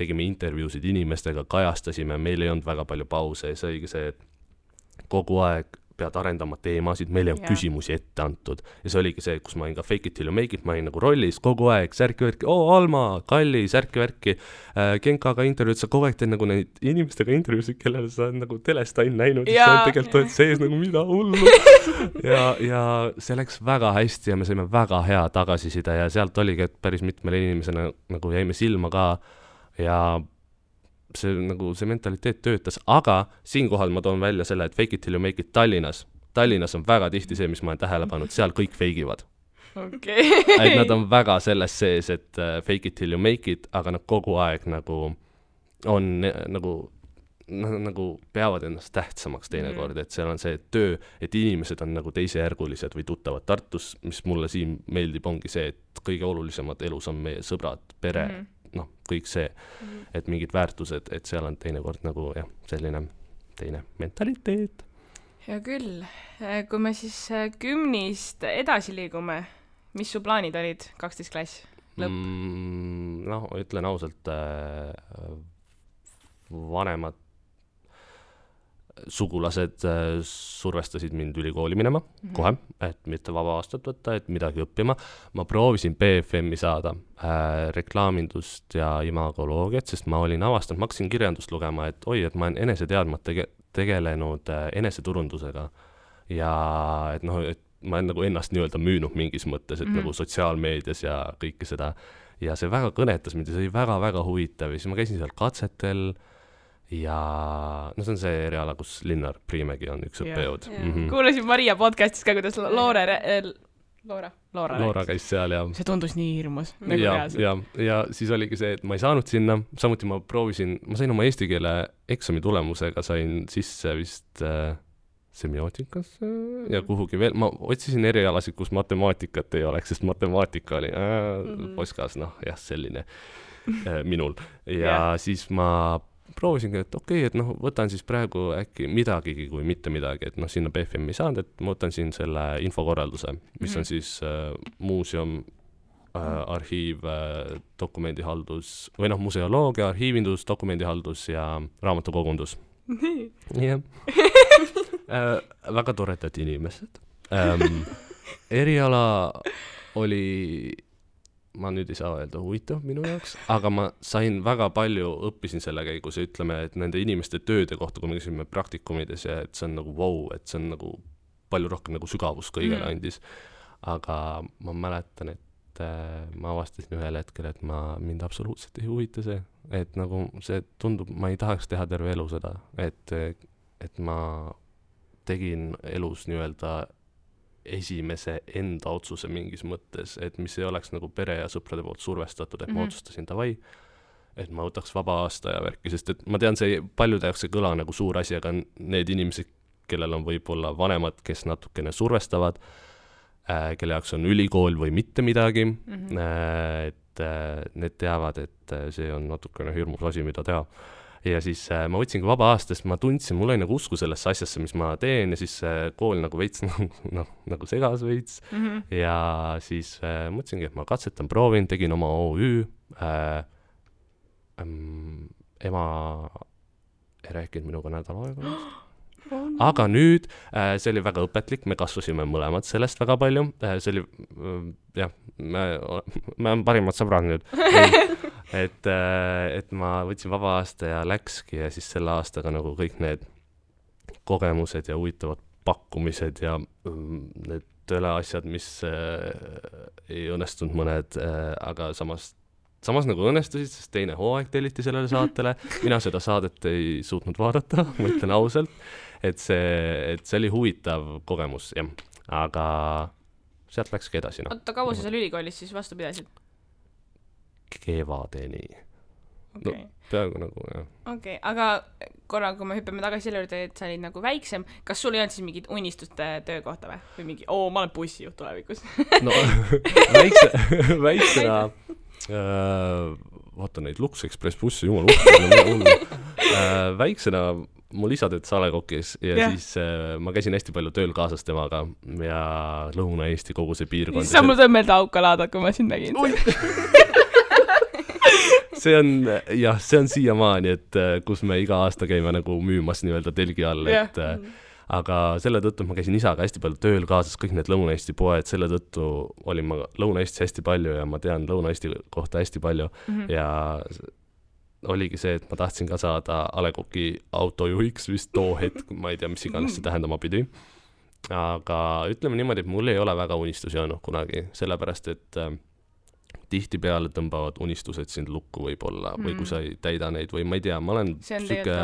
tegime intervjuusid inimestega, kajastasime, meil ei olnud väga palju pause ja see oligi see, et kogu aeg pead arendama teemasid, meil ei olnud küsimusi ette antud. Ja see oligi see, kus ma olin ka fake it till you make it, ma olin nagu rollis kogu aeg, särki-värki, Alma, Kalli, särki-värki, Genkaga intervjuud, sa kogu aeg teed nagu neid inimestega intervjuusid, kellele sa nagu telest ainult näinud, ja sa tegelikult oled sees nagu mida hullu. ja see läks väga hästi ja me saime väga hea tagasiside ja sealt oligi, et päris mitmele inimesena nagu jäime silma ka ja see mentaliteet töötas, aga siinkohal ma toon välja selle, et fake it till you make it Tallinnas on väga tihti see, mis ma olen tähele pannud, seal kõik feigivad. Et nad on väga selles sees, et fake it till you make it, aga nad kogu aeg nagu on nagu peavad ennast tähtsamaks teinekord, et seal on see töö, et inimesed on nagu teisejärgulised või tuttavad Tartus, mis mulle siin meeldib, ongi see, et kõige olulisemad elus on meie sõbrad, pere, kõik see, et mingid väärtused, et seal on teinekord nagu selline teine mentaliteet. Ja küll, kui me siis gümnist edasi liigume, mis su plaanid olid 12 klass lõpp? Ütlen ausalt, vanemad sugulased survestasid mind ülikooli minema kohe, et mitte vaba aastat võtta, et midagi õppima. Ma proovisin BFM-i saada reklaamindust ja imagoloogiat, sest ma olin avastanud, ma hakkasin kirjandust lugema, et et ma olen eneseteadmat tegelenud eneseturundusega ja et ma olen nagu ennast nii-öelda müünud mingis mõttes, et nagu sotsiaalmeedias ja kõike seda ja see väga kõnetas mind ja see oli väga-väga huvitav ja siis ma käisin seal katsetel ja see on see eriala, kus Linnar Priimägi on üks õppejõud. Kuulasin Maria podcastis ka, kuidas Loora käis seal ja see tundus nii hirmus. Ja siis oligi see, et ma ei saanud sinna, samuti ma sain oma eesti keele eksami tulemusega, sain sisse vist semiootikas ja kuhugi veel, ma otsisin erialasid, kus matemaatikat ei oleks, sest matemaatika oli poskas, selline minul ja siis ma proovisingi, et et võtan siis praegu äkki midagigi kui mitte midagi, et sinna BFM ei saanud, et ma võtan siin selle infokorralduse, mis on siis muuseum, arhiiv, dokumendihaldus või museoloogia, arhiivindus, dokumendihaldus ja raamatukogundus. Väga toredad inimesed. Eriala oli ma nüüd ei saa öelda huvitav minu jaoks, aga ma sain väga palju, õppisin selle käigus ja ütleme, et nende inimeste tööde kohta, kui me käisime praktikumides ja et see on nagu et see on nagu palju rohkem nagu sügavus kõigele andis. Aga ma mäletan, et ma avastasin ühel hetkel, et mind absoluutselt ei huvita see, et nagu see tundub, ma ei tahaks teha terve elu seda, et ma tegin elus nii-öelda esimese enda otsuse mingis mõttes, et mis ei oleks nagu pere ja sõprade poolt survestatud, et ma otsustasin davai, et ma võtaks vaba aasta ja värki, sest et ma tean, see paljude jaoks ei kõla nagu suur asi, aga need inimesed, kellel on võib-olla vanemad, kes natukene survestavad, kelle jaoks on ülikool või mitte midagi, et need teavad, et see on natukene hirmus asi, mida teha. Ja siis ma võtsingi vaba aastast, ma tundsin, mul oli nagu usku sellesse asjasse, mis ma teen ja siis kool nagu veits nagu segas veits ja siis mõtlesingi, et ma katsetan, proovin, tegin oma OÜ, ema ei rääkinud minuga nädal aega aga nüüd see oli väga õpetlik, me kasvasime mõlemad sellest väga palju, see oli me on parimad sõbrad nüüd et ma võtsin vaba aasta ja läkski ja siis selle aastaga nagu kõik need kogemused ja huvitavad pakkumised ja need tööleasjad, mis ei õnnestunud mõned, aga samas nagu õnnestusid, sest teine hooaeg telliti sellele saatele, mina seda saadet ei suutnud vaadata, ma ütlen ausalt, et see oli huvitav kogemus, jah, aga sealt läkski edasi. Oota, kaua sa seal ülikoolis siis vastu pidasid? Kevadeni. Peaaegu nagu, jah. Okei, aga korra, kui me hüppame tagasi selle juurde, et sa olid nagu väiksem, kas sul ei olnud siis mingid unistuste töökohta või? Või mingi, ma olen bussijuht tulevikus? No, väiksena vaata neid Lux Express bussi, jumal väiksena mul isa töötas Salekokis ja siis ma käisin hästi palju tööl kaasas temaga ja Lõuna-Eesti kogu see piirkond. Sa mul tõi meelde Aukalaada, kui ma sind nägin. See on siiamaani, et kus me iga aasta käime nagu müümas nii-öelda telgi all, et aga selle tõttu ma käisin isaga hästi palju tööl kaasas, kõik need Lõuna-Eesti poed, selle tõttu olin ma Lõuna-Eestis hästi palju ja ma tean Lõuna-Eesti kohta hästi palju ja oligi see, et ma tahtsin ka saada A. Le Coq'i autojuhiks vist too hetk, ma ei tea, mis iganes see tähendama pidi. Aga ütleme niimoodi, et mul ei ole väga unistusi olnud kunagi, sellepärast, et tihtipeale tõmbavad unistused sind lukku võib-olla või kui sa ei täida neid või ma ei tea, ma olen süke,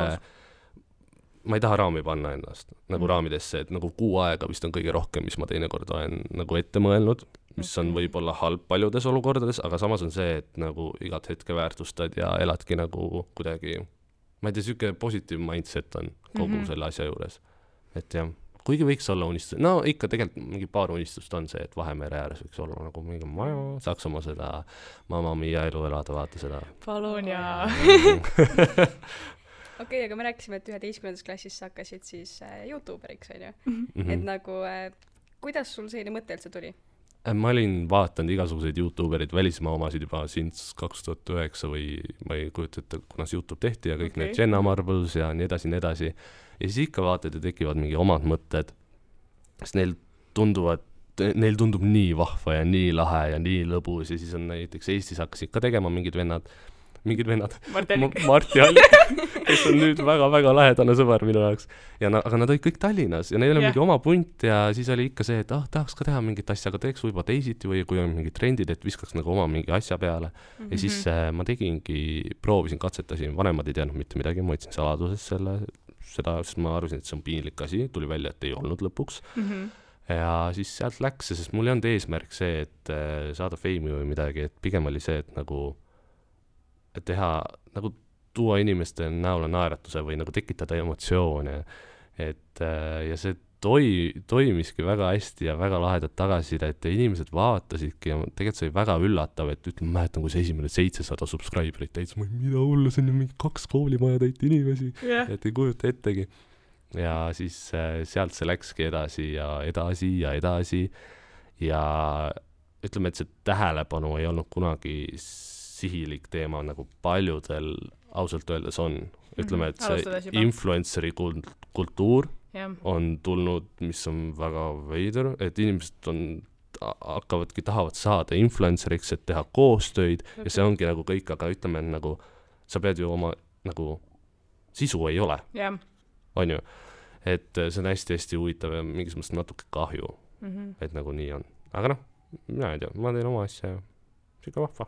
ma ei taha raami panna ennast nagu raamidesse, et nagu 6 aega vist on kõige rohkem, mis ma teinekord olen nagu ette mõelnud, mis on võib-olla halb paljudes olukordades, aga samas on see, et nagu igat hetke väärtustad ja eladki nagu kuidagi, ma ei tea, süke positiiv mindset on kogu selle asja juures, et jah. Kuigi võiks olla unistus, no ikka tegelikult mingi paar unistust on see, et Vahemere ääres võiks olla nagu mingi maja, Saksamaa seda Mamma Mia elu elada, vaata seda. Palun ja. Okei, aga me rääkisime, et 11. klassis sa hakkasid siis YouTuberiks, on ju? Et nagu, kuidas sul selline mõte üldse tuli? Ma olin vaatanud igasuguseid YouTuberid, välismaa omasid juba since 2009 või ma ei kujuta ette, kunas YouTube tehti ja kõik need Jenna Marbles ja nii edasi. Ja siis ikka vaatad ja tekivad mingi omad mõtted, sest neil tundub nii vahva ja nii lahe ja nii lõbus ja siis on näiteks Eestis hakkasid ka tegema mingid vennad, Marti Allik, kes on nüüd väga-väga lähedane sõber minu jaoks. Aga nad olid kõik Tallinnas ja neil oli mingi oma punt ja siis oli ikka see, et tahaks ka teha mingit asja, aga teeks võib-olla teisiti või kui on mingid trendid, et viskaks nagu oma mingi asja peale. Ja siis ma proovisin, katsetasin, vanemad ei teadnud mitte midagi, ma võtsin saladuses seda, sest ma arvasin, et see on piinlik asi, tuli välja, et ei olnud lõpuks. Ja siis sealt läks, sest mul ei olnud eesmärk see, et saada feimi või midagi, et pigem oli see, et nagu et teha, nagu tuua inimeste näole naeratuse või nagu tekitada emotsioone, et ja see toimiski väga hästi ja väga lahedalt tagasiside, et inimesed vaatasidki ja tegelikult see oli väga üllatav, et ütleme, mäletan, kui see esimene 700 subscriberit täitsa, mida hullu, see on ju mingi 2 koolimaja täit inimesi, et ei kujuta ettegi. Ja siis sealt see läkski edasi ja ütleme, et see tähelepanu ei olnud kunagi sihilik teema, nagu paljudel ausalt öeldes on. Ütleme, et see influenceri kultuur on tulnud, mis on väga veider, et inimesed tahavad saada influenceriks, et teha koostöid ja see ongi nagu kõik, aga ütleme, nagu sa pead ju oma nagu sisu ei ole. On ju? Et see on hästi-hästi huvitav ja mingis mõttes natuke kahju, et nagu nii on. Aga noh, mina ei tea, ma teen oma asja ja siuke vahva.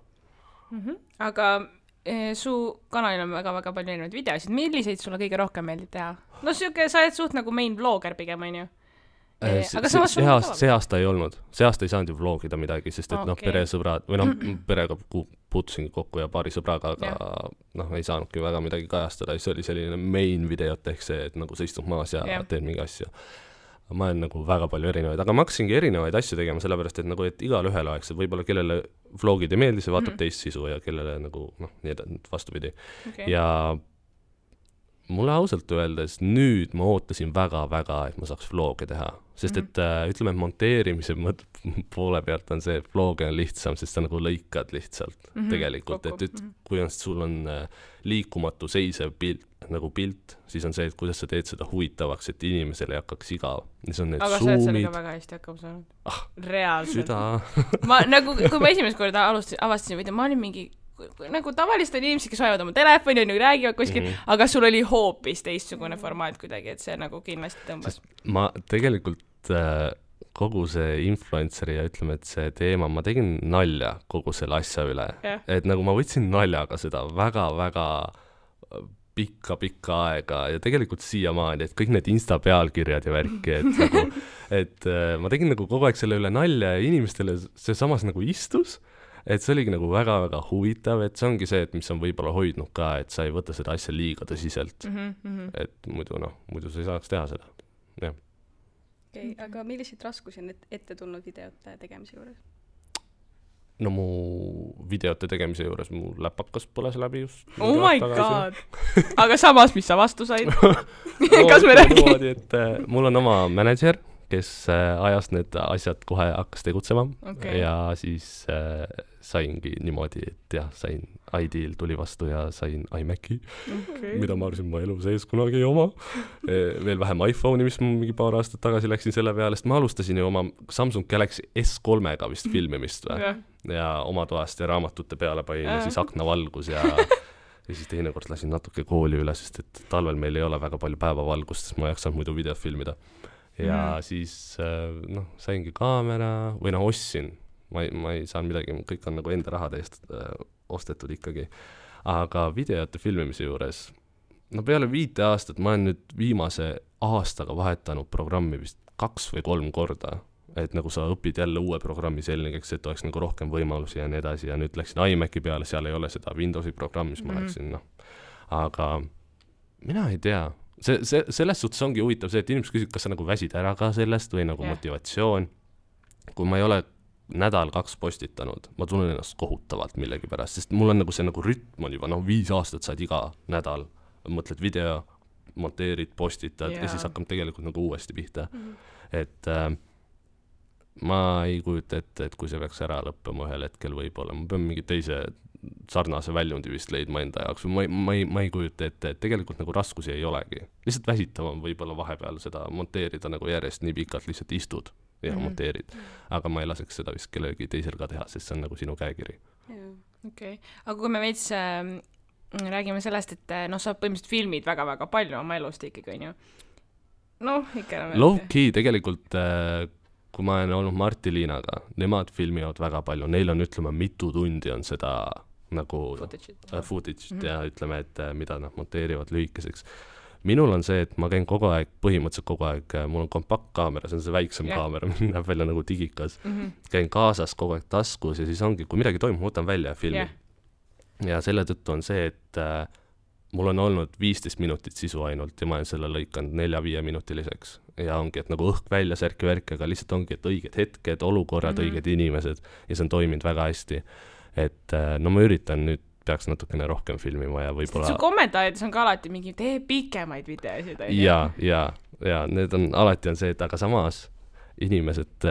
Aga su kanalil on väga-väga palju erinevaid videosid. Milliseid sulle kõige rohkem meeldib teha? No siuke, sa oled suht nagu main vlogger pigem, on ju? See aasta ei olnud. See aasta ei saanud ju vlogida midagi, sest et peresõbrad, või perega puutusingi kokku ja paari sõbraga, aga ei saanudki väga midagi kajastada. See oli selline main videot ehk see, et nagu sa istud maas ja teed mingi asja. Ma olen nagu väga palju erinevaid, aga ma hakkasingi erinevaid asju tegema, sellepärast, et nagu, et igal ühel oleks, et võib-olla kellele vlogid ei meeldi, see vaatab teist sisu ja kellele nagu, nii vastupidi. Ja mulle ausalt öeldes nüüd ma ootasin väga-väga, et ma saaks vloge teha, sest et ütleme, et monteerimise poole pealt on see, et vloge on lihtsam, sest sa nagu lõikad lihtsalt tegelikult, et kui sul on liikumatu seisev pilt, siis on see, et kuidas sa teed seda huvitavaks, et inimesele ei hakkaks igav. Aga sa oled sellega väga hästi hakkama saanud. Reaalselt. Kui ma esimest korda avastasin video, ma olin mingi nagu tavaliselt on inimesed, kes hoiavad oma telefoni ja nagu räägivad kuskil, aga sul oli hoopis teistsugune formaat kuidagi, et see nagu kindlasti tõmbas. Ma tegelikult kogu see influenceri ja ütleme, et see teema, ma tegin nalja kogu selle asja üle. Et nagu ma võtsin naljaga seda väga-väga pikka aega ja tegelikult siiamaani, et kõik need Insta pealkirjad ja värki, et, nagu, et ma tegin nagu kogu aeg selle üle nalja ja inimestele see samas nagu istus. Et see oligi nagu väga-väga huvitav, et see ongi see, et mis on võib-olla hoidnud ka, et sa ei võta seda asja liiga tõsiselt. Et muidu sa ei saaks teha seda. Okay, aga milliseid raskusi on ette tulnud videote tegemise juures? No mu videote tegemise juures mu läpakas põles läbi just. Oh my god! Aga samas, mis sa vastu said? Kas me räägime? Et mul on oma manager, kes ajas need asjad kohe hakkas tegutsema ja siis saingi niimoodi, et jah, sain ID-l tuli vastu ja sain iMaci, mida ma arvasin ma elu sees kunagi ei oma. Veel vähem iPhone'i, mis ma mingi paar aastat tagasi läksin selle peale, sest ma alustasin ju oma Samsung Galaxy S3-ga vist filmimist ja oma toast ja raamatute peale panin ja siis aknavalgus ja siis teinekord lasin natuke kooli üle, sest et talvel meil ei ole väga palju päevavalgust, sest ma ei jaksanud muidu videot filmida. Ja siis saingi kaamera või ostsin. Ma ei saanud midagi, kõik on nagu enda rahade eest ostetud ikkagi. Aga videote filmimise juures, peale 5 aastat ma olen nüüd viimase aastaga vahetanud programmi vist 2 või 3 korda. Et nagu sa õpid jälle uue programmi selgeks, et oleks nagu rohkem võimalusi ja nii edasi ja nüüd läksin iMaci peale, seal ei ole seda Windowsi programmi, mis ma läksin, Aga mina ei tea, selles suhtes ongi huvitav see, et inimesed küsivad, kas sa nagu väsid ära ka sellest või nagu motivatsioon. Kui ma ei ole 1-2 nädalat postitanud, ma tunnen ennast kohutavalt millegi pärast, sest mul on nagu see nagu rütm on juba, 5 aastat saad iga nädal, mõtled video, monteerid, postitad ja siis hakkab tegelikult nagu uuesti pihta. Et ma ei kujuta ette, et kui see peaks ära lõppema ühel hetkel võib-olla, ma pean mingi teise sarnase väljundi vist leidma enda jaoks, ma ei kujuta ette, et tegelikult nagu raskusi ei olegi. Lihtsalt väsitav on võib-olla vahepeal seda monteerida nagu järjest nii pikalt, lihtsalt istud ja monteerid. Aga ma ei laseks seda vist kellegi teisel ka teha, sest see on nagu sinu käekiri. Okei. Aga kui me veits räägime sellest, et sa põhimõtteliselt filmid väga-väga palju oma elust ikkagi, on ju? Ikka low-key tegelikult kui ma olen olnud Marti Liinaga, nemad filmivad väga palju, neil on, ütleme, mitu tundi on seda nagu footage ja ütleme, et mida nad monteerivad lühikeseks. Minul on see, et ma käin kogu aeg, põhimõtteliselt kogu aeg, mul on kompaktkaamera, see on see väiksem kaamera, näeb välja nagu digikas. Käin kaasas kogu aeg taskus ja siis ongi, kui midagi toimub, ma võtan välja filmi. Ja selle tõttu on see, et mul on olnud 15 minutit sisu ainult ja ma olen selle lõikanud 4-5 minutiliseks. Ja ongi, et nagu õhk välja särki-värki, aga lihtsalt ongi, et õiged hetked, olukorrad, õiged inimesed ja see on toiminud väga hästi. Et ma üritan nüüd, peaks natukene rohkem filmima ja võib-olla... Su kommentaarides on ka alati mingi, tee pikemaid videosid. Ja need on, alati on see, et aga samas inimesed,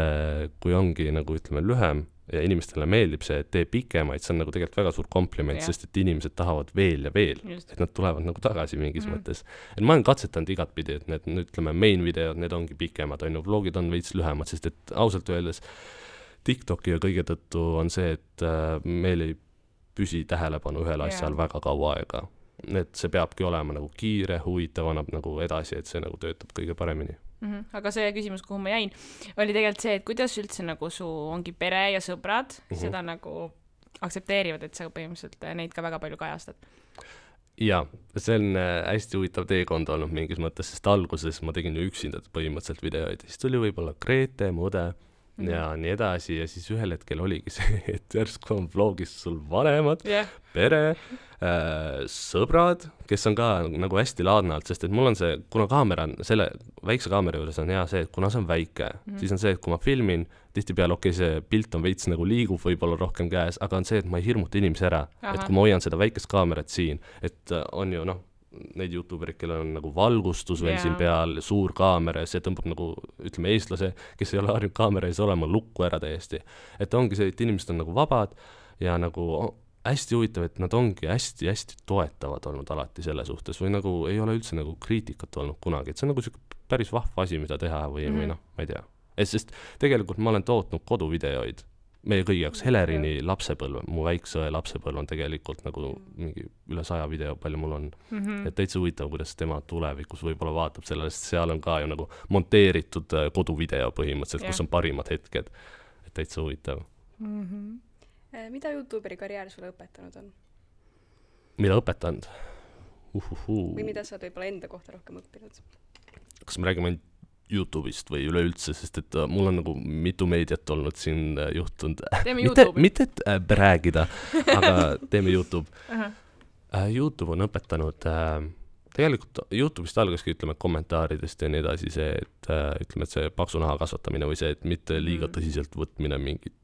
kui ongi nagu ütleme lühem, ja inimestele meeldib see, et tee pikemaid, see on nagu tegelikult väga suur kompliment, sest et inimesed tahavad veel ja veel, et nad tulevad nagu tagasi mingis mõttes. Et ma olen katsetanud igat pidi, et need, ütleme, main videod, need ongi pikemad, on ju, vlogid on veits lühemad, sest et ausalt öeldes TikToki ja kõige tõttu on see, et meil ei püsi tähelepanu ühel asjal väga kaua aega. Et see peabki olema nagu kiire, huvitav, annab nagu edasi, et see nagu töötab kõige paremini. Aga see küsimus, kuhu ma jäin, oli tegelikult see, et kuidas üldse nagu su ongi pere ja sõbrad seda nagu aktsepteerivad, et sa põhimõtteliselt neid ka väga palju kajastad? Ja, see on hästi huvitav teekond olnud mingis mõttes, sest alguses ma tegin ju üksinda põhimõtteliselt videoid ja siis tuli võib-olla Grete, Mude ja nii edasi ja siis ühel hetkel oligi see, et järsku on vlogis sul vanemad, pere, sõbrad, kes on ka nagu hästi laadnalt, sest et mul on see, kuna kaamera on, selle väikse kaamera juures on hea see, et kuna see on väike, siis on see, et kui ma filmin, tihtipeale see pilt on veits nagu liigub võib-olla rohkem käes, aga on see, et ma ei hirmuta inimesi ära, et kui ma hoian seda väikest kaamerat siin, et on ju neid YouTuberid, kellel on nagu valgustus veel siin peal, suur kaamera ja see tõmbab nagu, ütleme, eestlase, kes ei ole harjunud kaamera ees olema, lukku ära täiesti. Et ongi see, et inimesed on nagu vabad ja nagu hästi huvitav, et nad ongi hästi toetavad olnud alati selle suhtes või nagu ei ole üldse nagu kriitikat olnud kunagi, et see on nagu päris vahva asi, mida teha või ma ei tea. Sest tegelikult ma olen tootnud koduvideoid meie kõigi jaoks Helerini lapsepõlv, mu väikse lapsepõlv on tegelikult nagu mingi üle 100 video, palju mul on. Et täitsa huvitav, kuidas tema tulevikus võib-olla vaatab sellele, sest seal on ka ju nagu monteeritud koduvideo põhimõtteliselt, kus on parimad hetked. Et täitsa huvitav. Mida YouTuberi karjäär sulle õpetanud on? Mida õpetanud? Või mida sa võib-olla enda kohta rohkem õppinud? Kas me räägime YouTube'ist või üleüldse, sest et mul on nagu mitu meediat olnud siin juhtunud. Mitte et räägida, aga teeme YouTube. YouTube on õpetanud, tegelikult YouTube'ist algaski, ütleme, kommentaaridest ja nii edasi see, et ütleme, et see paksu naha kasvatamine või see, et mitte liiga tõsiselt võtmine mingit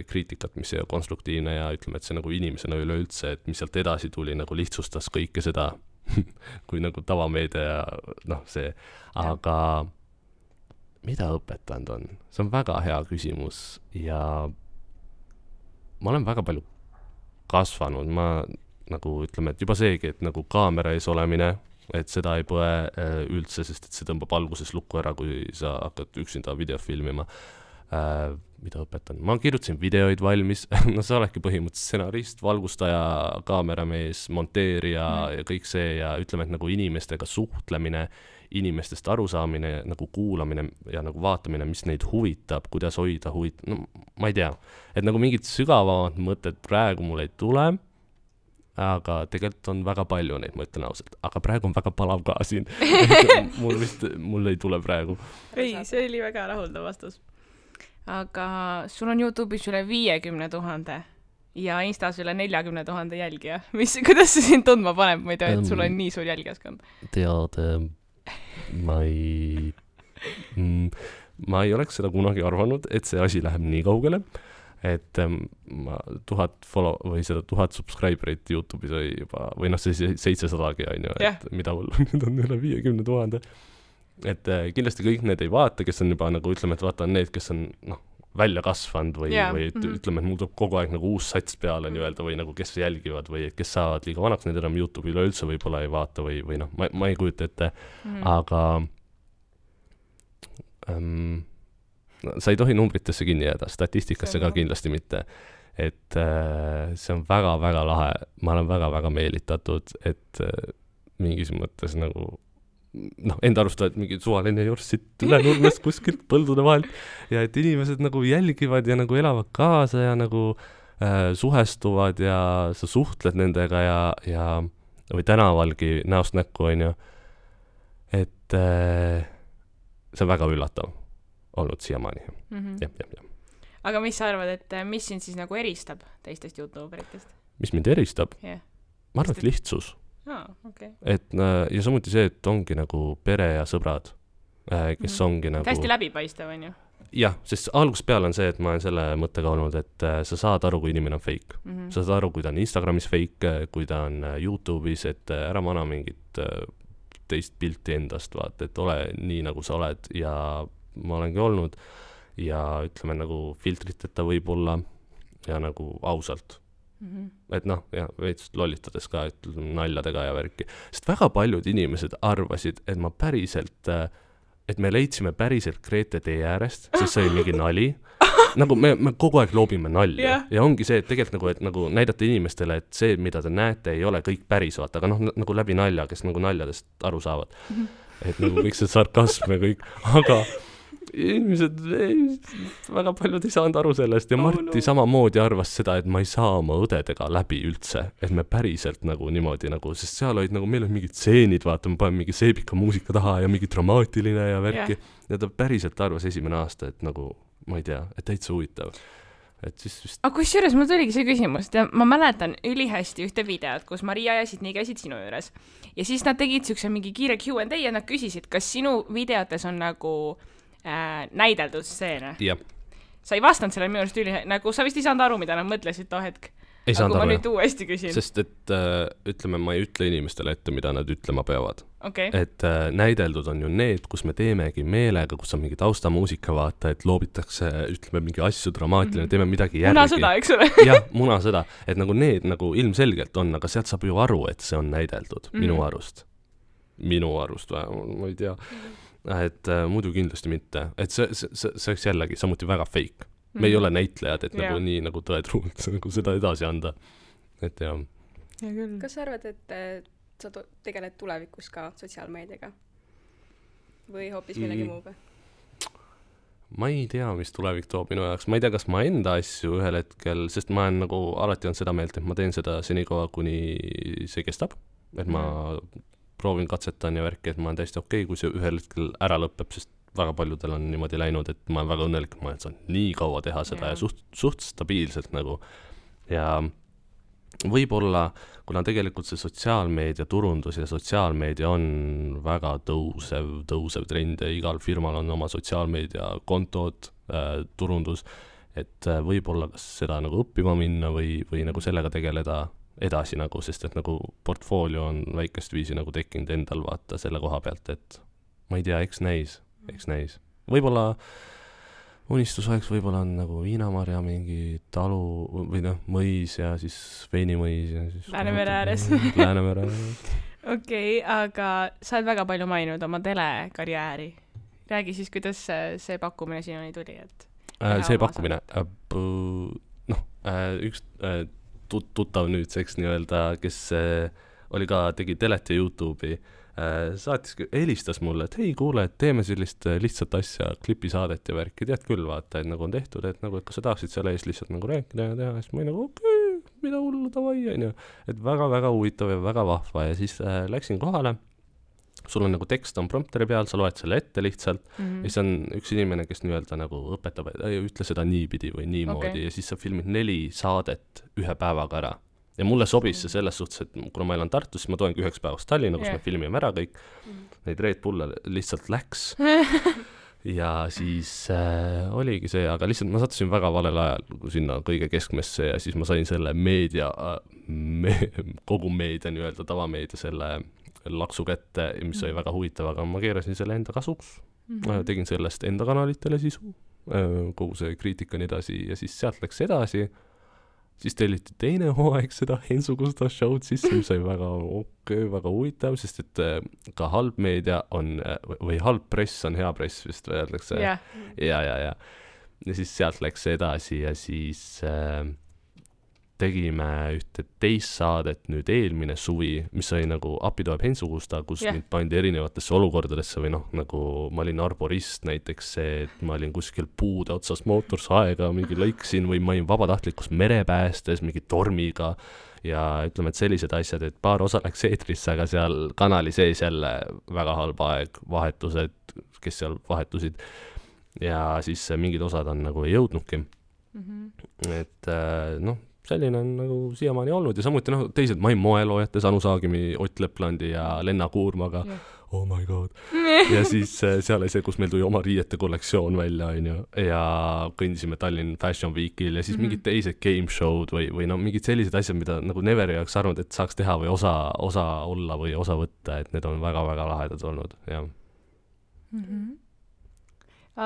kriitikat, mis ei ole konstruktiivne ja ütleme, et see nagu inimesena üleüldse, et mis sealt edasi tuli, nagu lihtsustas kõike seda, kui nagu tavameedia ja see, aga mida õpetanud on? See on väga hea küsimus ja ma olen väga palju kasvanud, ma nagu ütleme, et juba seegi, et nagu kaamera ees olemine, et seda ei põe üldse, sest et see tõmbab alguses lukku ära, kui sa hakkad üksinda videot filmima. Mida õpetan? Ma kirjutasin videoid valmis, no sa oledki põhimõtteliselt stsenarist, valgustaja, kaameramees, monteerija ja kõik see ja ütleme, et nagu inimestega suhtlemine, inimestest arusaamine, nagu kuulamine ja nagu vaatamine, mis neid huvitab, kuidas hoida no ma ei tea, et nagu mingid sügavamad mõtted praegu mul ei tule, aga tegelikult on väga palju neid, ma ütlen ausalt, aga praegu on väga palav ka siin. mul ei tule praegu. Ei, see oli väga rahuldav vastus. Aga sul on YouTube'is üle 50 000 ja Instas üle 40 000 jälgija. Kuidas see sind tundma paneb, ma ei tea, et sul on nii suur jälgijaskond? Tead, ma ei oleks seda kunagi arvanud, et see asi läheb nii kaugele, et ma 1000 follow või seda 1000 subscriberit YouTube'is oli juba, või noh, see 700-gi on ju, et mida mul nüüd on üle 50 000. Et kindlasti kõik need ei vaata, kes on juba nagu ütleme, et vaata need, kes on välja kasvanud või ütleme, et mul tuleb kogu aeg nagu uus sats peale nii-öelda või nagu kes jälgivad või kes saavad liiga vanaks, need enam YouTube'i üleüldse võib-olla ei vaata või noh, ma ei kujuta ette, aga sa ei tohi numbritesse kinni jääda, statistikasse ka kindlasti mitte. Et see on väga-väga lahe, ma olen väga-väga meelitatud, et mingis mõttes nagu enda arvustavad mingi suvaline jorss siit üle nurmest kuskilt põldude vahelt ja et inimesed nagu jälgivad ja nagu elavad kaasa ja nagu suhestuvad ja sa suhtled nendega ja või tänavalgi näost näkku on ju, et see on väga üllatav olnud siiamaani. Aga mis sa arvad, et mis sind siis nagu eristab teistest YouTuberitest? Mis mind eristab? Ma arvan, et lihtsus. Okay. Et ja samuti see, et ongi nagu pere ja sõbrad, kes ongi nagu hästi läbipaistev on ju? Jah, sest algusest peale on see, et ma olen selle mõttega olnud, et sa saad aru, kui inimene on fake. Sa saad aru, kui ta on Instagramis fake, kui ta on YouTube'is, et ära mana mingit teist pilti endast, vaat, et ole nii, nagu sa oled ja ma olengi olnud ja ütleme nagu filtriteta võib-olla ja nagu ausalt. Et noh, ja veits lollitades ka, et naljadega ja värki. Sest väga paljud inimesed arvasid, et ma päriselt, et me leidsime päriselt Grete tee äärest, sest see oli mingi nali. Nagu me kogu aeg loobime nalja. Ja ongi see, et tegelikult nagu, et nagu näidata inimestele, et see, mida te näete, ei ole kõik päris, vaata, aga noh, nagu läbi nalja, kes nagu naljadest aru saavad. Et nagu kõik see sarkasm ja kõik, aga inimesed, väga paljud ei saanud aru sellest ja Marti samamoodi arvas seda, et ma ei saa oma õdedega läbi üldse, et me päriselt nagu niimoodi nagu, sest seal olid nagu, meil olid mingid stseenid, vaata, ma panen mingi seebika muusika taha ja mingi dramaatiline ja värki ja ta päriselt arvas esimene aasta, et nagu, ma ei tea, et täitsa huvitav. Et siis vist... Aga kusjuures mul tuligi see küsimus, ma mäletan ülihästi ühte videot, kus Maria ja Sidney käisid sinu juures ja siis nad tegid siukse mingi kiire Q&A ja nad küsisid, kas sinu videotes on nagu näideldud stseene. Sa ei vastanud selle minu arust nagu sa vist ei saanud aru, mida nad mõtlesid too hetk. Ei saanud aru, ma nüüd uuesti küsin. Sest et ütleme, ma ei ütle inimestele ette, mida nad ütlema peavad. Okay. Et näideldud on ju need, kus me teemegi meelega, kus on mingi taustamuusika vaata, et loobitakse, ütleme, mingi asju dramaatiline, teeme midagi järgi. Munasõda, eks ole? Jah, munasõda. Et nagu need nagu ilmselgelt on, aga sealt saab ju aru, et see on näideldud minu arust. Minu arust vähemalt, ma ei tea. Et muidu kindlasti mitte. Et see oleks jällegi samuti väga fake. Me ei ole näitlejad, et nagu nii nagu tõetruult nagu seda edasi anda. Et jah. Kas sa arvad, et sa tegeled tulevikus ka sotsiaalmeediaga? Või hoopis millegi muuga? Ma ei tea, mis tulevik toob minu jaoks. Ma ei tea, kas ma enda asju ühel hetkel, sest ma olen nagu alati on seda meelt, et ma teen seda senikaua, kuni see kestab. Et ma proovin katsetan ja värki, et ma olen täiesti okei, kui see ühel hetkel ära lõpeb, sest väga paljudel on niimoodi läinud, et ma olen väga õnnelik, ma olen saanud nii kaua teha seda ja suht stabiilselt nagu. Ja võib-olla, kuna tegelikult see sotsiaalmeedia turundus ja sotsiaalmeedia on väga tõusev trend ja igal firmal on oma sotsiaalmeedia kontod, turundus, et võib-olla kas seda nagu õppima minna või nagu sellega tegeleda edasi nagu, sest et nagu portfoolio on väikest viisi nagu tekkinud endal vaata selle koha pealt, et ma ei tea, eks näis. võib-olla unistus oleks võib-olla on nagu Viinamarja mingi talu või noh, mõis ja siis veinimõis ja siis Läänemere ääres. Läänemere ääres. Okei, aga sa oled väga palju maininud oma telekarjääri. Räägi siis, kuidas see pakkumine sinuni tuli, et see pakkumine, üks tuttav nüüdseks nii-öelda, kes oli ka, tegi telet ja YouTube'i, helistas mulle, et hei, kuule, et teeme sellist lihtsat asja, klipisaadet ja värki, tead küll, vaata, et nagu on tehtud, et nagu, et kas sa tahaksid selle eest lihtsalt nagu rääkida ja teha, siis ma olin nagu okei, mida hullu, davai, onju. Et väga-väga huvitav ja väga vahva ja siis läksin kohale. Sul on nagu tekst on prompteri peal, sa loed selle ette lihtsalt ja siis on üks inimene, kes nii-öelda nagu õpetab, et ütle seda niipidi või niimoodi ja siis sa filmid 4 saadet ühe päevaga ära. Ja mulle sobis see selles suhtes, et kuna ma elan Tartus, siis ma toengi 1 päevast Tallinna, kus me filmime ära kõik. Neid Red Bulle lihtsalt läks. Ja siis oligi see, aga lihtsalt ma sattusin väga valel ajal sinna kõige keskmesse ja siis ma sain selle meedia, kogu meedia nii-öelda tavameedia selle laksu kätte, mis oli väga huvitav, aga ma keerasin selle enda kasuks. Tegin sellest enda kanalitele sisu, kogu see kriitika nii edasi ja siis sealt läks edasi. Siis telliti teine hooaeg seda Hensugusta show'd sisse, mis oli väga väga huvitav, sest et ka halb meedia on, või halb press on hea press, vist öeldakse. Ja. Ja siis sealt läks edasi ja siis tegime ühte teist saadet nüüd eelmine suvi, mis oli nagu Appi tuleb Hensugusta, kus mind pandi erinevatesse olukordadesse või noh, nagu ma olin arborist näiteks see, et ma olin kuskil puude otsas mootorsaega, mingi lõiksin või ma olin vabatahtlikus merepäästes mingi tormiga ja ütleme, et sellised asjad, et paar osa läks eetrisse, aga seal kanali sees jälle väga halb aeg, vahetused, kes seal vahetusid ja siis mingid osad on nagu ei jõudnudki. Et noh, selline on nagu siiamaani olnud ja samuti noh, teised ma olin moeloojates Anu Saagimi, Ott Leplandi ja Lenna Kuurmaga. Oh my god. Ja siis seal oli see, kus meil tuli oma riiete kollektsioon välja ja kõndisime Tallinn Fashion Weekil ja siis mingid teised game show'd või no mingid sellised asjad, mida nagu never ei oleks arvanud, et saaks teha või osa olla või osa võtta, et need on väga-väga lahedad olnud, jah.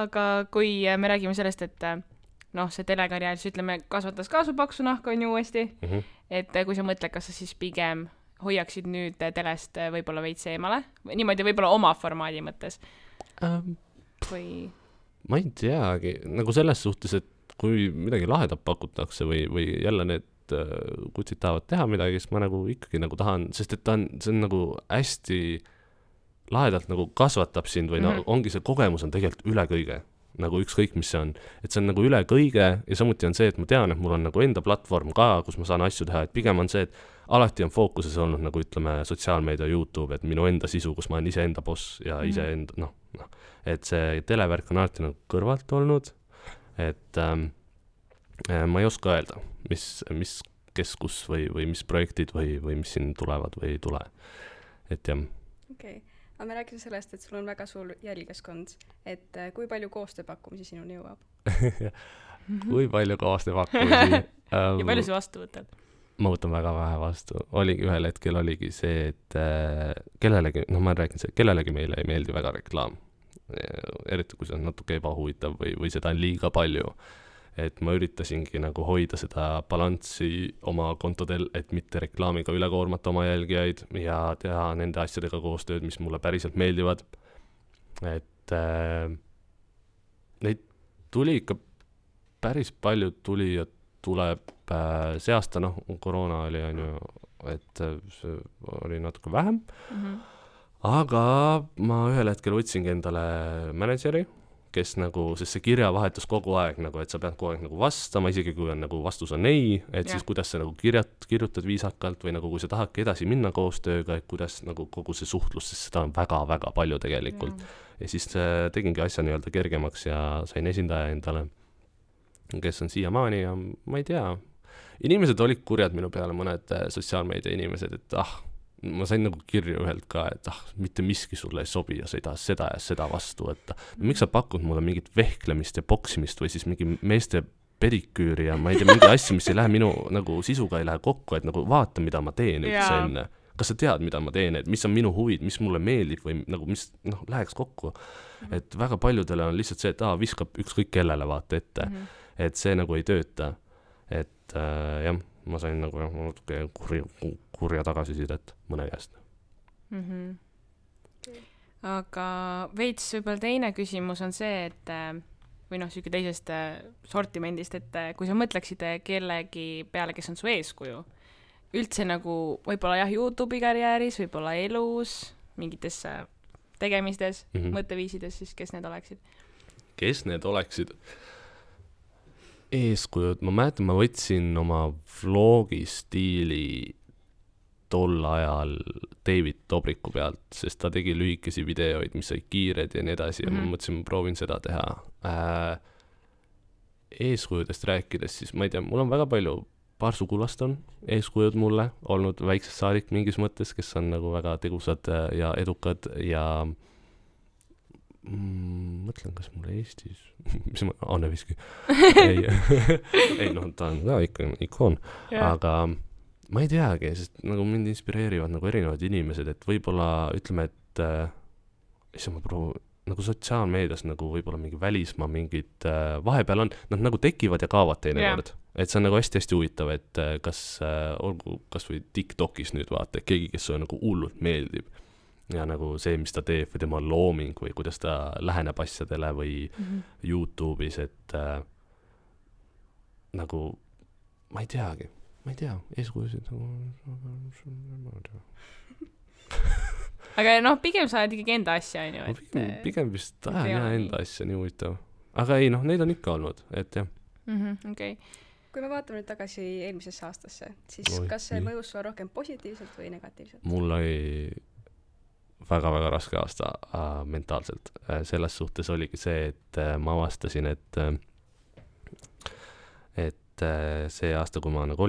Aga kui me räägime sellest, et noh, see telekarjäär, siis ütleme, kasvatas ka su paksu nahka on ju uuesti, et kui sa mõtled, kas sa siis pigem hoiaksid nüüd telest võib-olla veits eemale, niimoodi võib-olla oma formaadi mõttes või? Ma ei teagi, nagu selles suhtes, et kui midagi lahedat pakutakse või jälle need kutsid tahavad teha midagi, siis ma nagu ikkagi nagu tahan, sest et see on nagu hästi lahedalt nagu kasvatab sind või no, ongi see kogemus on tegelikult üle kõige nagu ükskõik, mis see on. Et see on nagu üle kõige ja samuti on see, et ma tean, et mul on nagu enda platvorm ka, kus ma saan asju teha, et pigem on see, et alati on fookuses olnud nagu ütleme sotsiaalmeedia YouTube, et minu enda sisu, kus ma olen ise enda boss ja ise enda, noh, et see televärk on alati nagu kõrvalt olnud, et ma ei oska öelda, mis kes kus või mis projektid või mis siin tulevad või ei tule, et jah. Okei. Aga me rääkisime sellest, et sul on väga suur jälgijaskond, et kui palju koostööpakkumisi sinuni jõuab? Kui palju koostööpakkumisi? Ja palju sa vastu võtad? Ma võtan väga vähe vastu. Ühel hetkel oligi see, et kellelegi, noh ma räägin see, kellelegi meile ei meeldi väga reklaam. Eriti kui see on natuke ebahuvitav või seda on liiga palju. Et ma üritasingi nagu hoida seda balanssi oma kontodel, et mitte reklaamiga üle koormata oma jälgijaid ja teha nende asjadega koostööd, mis mulle päriselt meeldivad. Et neid tuli ikka päris palju tuli ja tuleb see aasta, noh, koroona oli, et see oli natuke vähem. Aga ma ühel hetkel võtsingi endale manažeri, kes nagu, sest see kirjavahetus kogu aeg nagu, et sa pead kogu aeg nagu vastama, isegi kui on nagu vastus on ei, et siis kuidas sa nagu kirjutad viisakalt või nagu kui sa tahadki edasi minna koostööga, et kuidas nagu kogu see suhtlus, sest seda on väga-väga palju tegelikult. Ja siis tegingi asja nii-öelda kergemaks ja sain esindaja endale, kes on siiamaani ja ma ei tea. Inimesed olid kurjad minu peale, mõned sotsiaalmeedia inimesed, et ma sain nagu kirju ühelt ka, et mitte miski sulle ei sobi ja sa ei taha seda ja seda vastu võtta. Miks sa pakud mulle mingit vehklemist ja boksimist või siis mingi meeste pediküüri ja ma ei tea, mingi asju, mis ei lähe minu nagu sisuga ei lähe kokku, et nagu vaata, mida ma teen üldse enne. kas sa tead, mida ma teen, et mis on minu huvid, mis mulle meeldib või nagu mis läheks kokku. Et väga paljudele on lihtsalt see, et viskab ükskõik kellele vaata ette, et see nagu ei tööta. Et jah, ma sain nagu natuke kurja tagasisidet mõne käest. Aga veits võib-olla teine küsimus on see, et või siuke teisest sortimendist, et kui sa mõtleksid kellegi peale, kes on su eeskuju, üldse nagu võib-olla YouTube'i karjääris, võib-olla elus, mingites tegemistes, mõtteviisides, siis kes need oleksid? Kes need oleksid? Eeskujud, ma mäletan, ma võtsin oma vlogi stiili tol ajal David Dobriku pealt, sest ta tegi lühikesi videoid, mis olid kiired ja nii edasi ja ma mõtlesin, ma proovin seda teha. Eeskujudest rääkides, siis ma ei tea, mul on väga palju, paar sugulast on eeskujud mulle olnud väiksest saadik mingis mõttes, kes on nagu väga tegusad ja edukad ja mõtlen, kas mul Eestis mis ma, Anne Viski ei, ta on ka ikka ikoon, aga ma ei teagi, sest nagu mind inspireerivad nagu erinevad inimesed, et võib-olla ütleme, et ma proovin nagu sotsiaalmeedias nagu võib-olla mingi välismaa mingid vahepeal on, nad nagu tekivad ja kaovad teinekord. Et see on nagu hästi-hästi huvitav, et olgu kas või TikTokis nüüd vaata, keegi, kes on nagu hullult meeldib ja nagu see, mis ta teeb või tema looming või kuidas ta läheneb asjadele või YouTube'is, et nagu ma ei tea, eeskujusid aga pigem sa oled ikkagi enda asja, on ju? Pigem vist enda asja, nii huvitav. Aga ei, neid on ikka olnud, et jah. Okay. Kui me vaatame nüüd tagasi eelmisesse aastasse, siis kas see mõjus sulle rohkem positiivselt või negatiivselt? Mul oli väga-väga raske aasta mentaalselt. Selles suhtes oligi see, et ma avastasin, et see aasta, kui ma nagu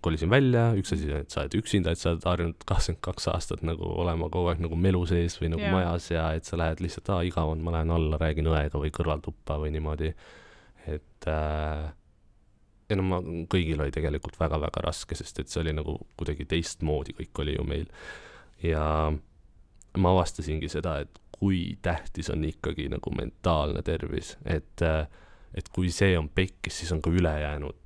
kolisin välja, üks asi, et sa oled üksinda, et sa oled harjunud 22 aastat nagu olema kogu aeg nagu melu sees või nagu majas ja et sa lähed lihtsalt, igav on, ma lähen alla, räägin õega või kõrvaltuppa või niimoodi. Et kõigil oli tegelikult väga-väga raske, sest et see oli nagu kuidagi teistmoodi, kõik oli ju meil. Ja ma avastasingi seda, et kui tähtis on ikkagi nagu mentaalne tervis, et kui see on pekkis, siis on ka ülejäänud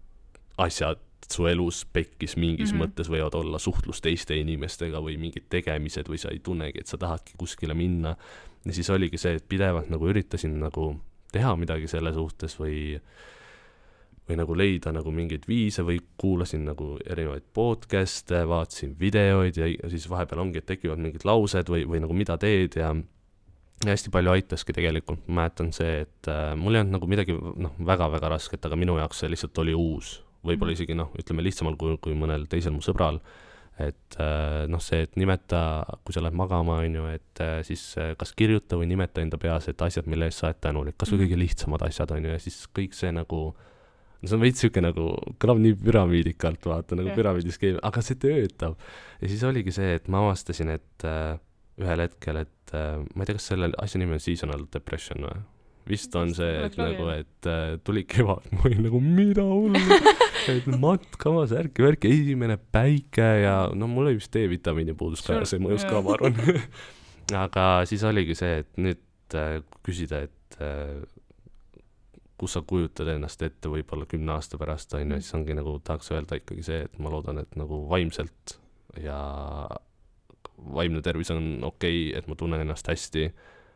asjad su elus pekkis mingis mõttes võivad olla suhtlus teiste inimestega või mingid tegemised või sa ei tunnegi, et sa tahadki kuskile minna. Ja siis oligi see, et pidevalt nagu üritasin nagu teha midagi selle suhtes või nagu leida nagu mingeid viise või kuulasin nagu erinevaid podcast'e, vaatasin videoid ja siis vahepeal ongi, et tekivad mingid laused või nagu mida teed ja hästi palju aitaski tegelikult. Ma mäletan see, et mul ei olnud nagu midagi väga-väga rasket, aga minu jaoks see lihtsalt oli uus. Võib-olla isegi ütleme lihtsamal kui mõnel teisel mu sõbral, et see, et nimeta, kui sa lähed magama, on ju, et siis kas kirjuta või nimeta enda peas, et asjad, mille eest sa oled tänulik, kas või kõige lihtsamad asjad, on ju, ja siis kõik see nagu, see on veits siuke nagu, kõlab nii püramiidikalt, vaata, nagu püramiidiskeem, aga see töötab. Ja siis oligi see, et ma avastasin, et ühel hetkel, et ma ei tea, kas selle asja nimi on seasonal depression või? Vist on see, et nagu, et tuli kevad, ma olin nagu, mida hullu, et matkamas, värki, esimene päike ja mul oli vist D-vitamiini puudus ka ja see mõjus ka, ma arvan. Aga siis oligi see, et nüüd küsida, et kus sa kujutad ennast ette võib-olla 10 aasta pärast, on, siis ongi nagu, tahaks öelda ikkagi see, et ma loodan, et nagu vaimselt ja vaimne tervis on okei, et ma tunnen ennast hästi,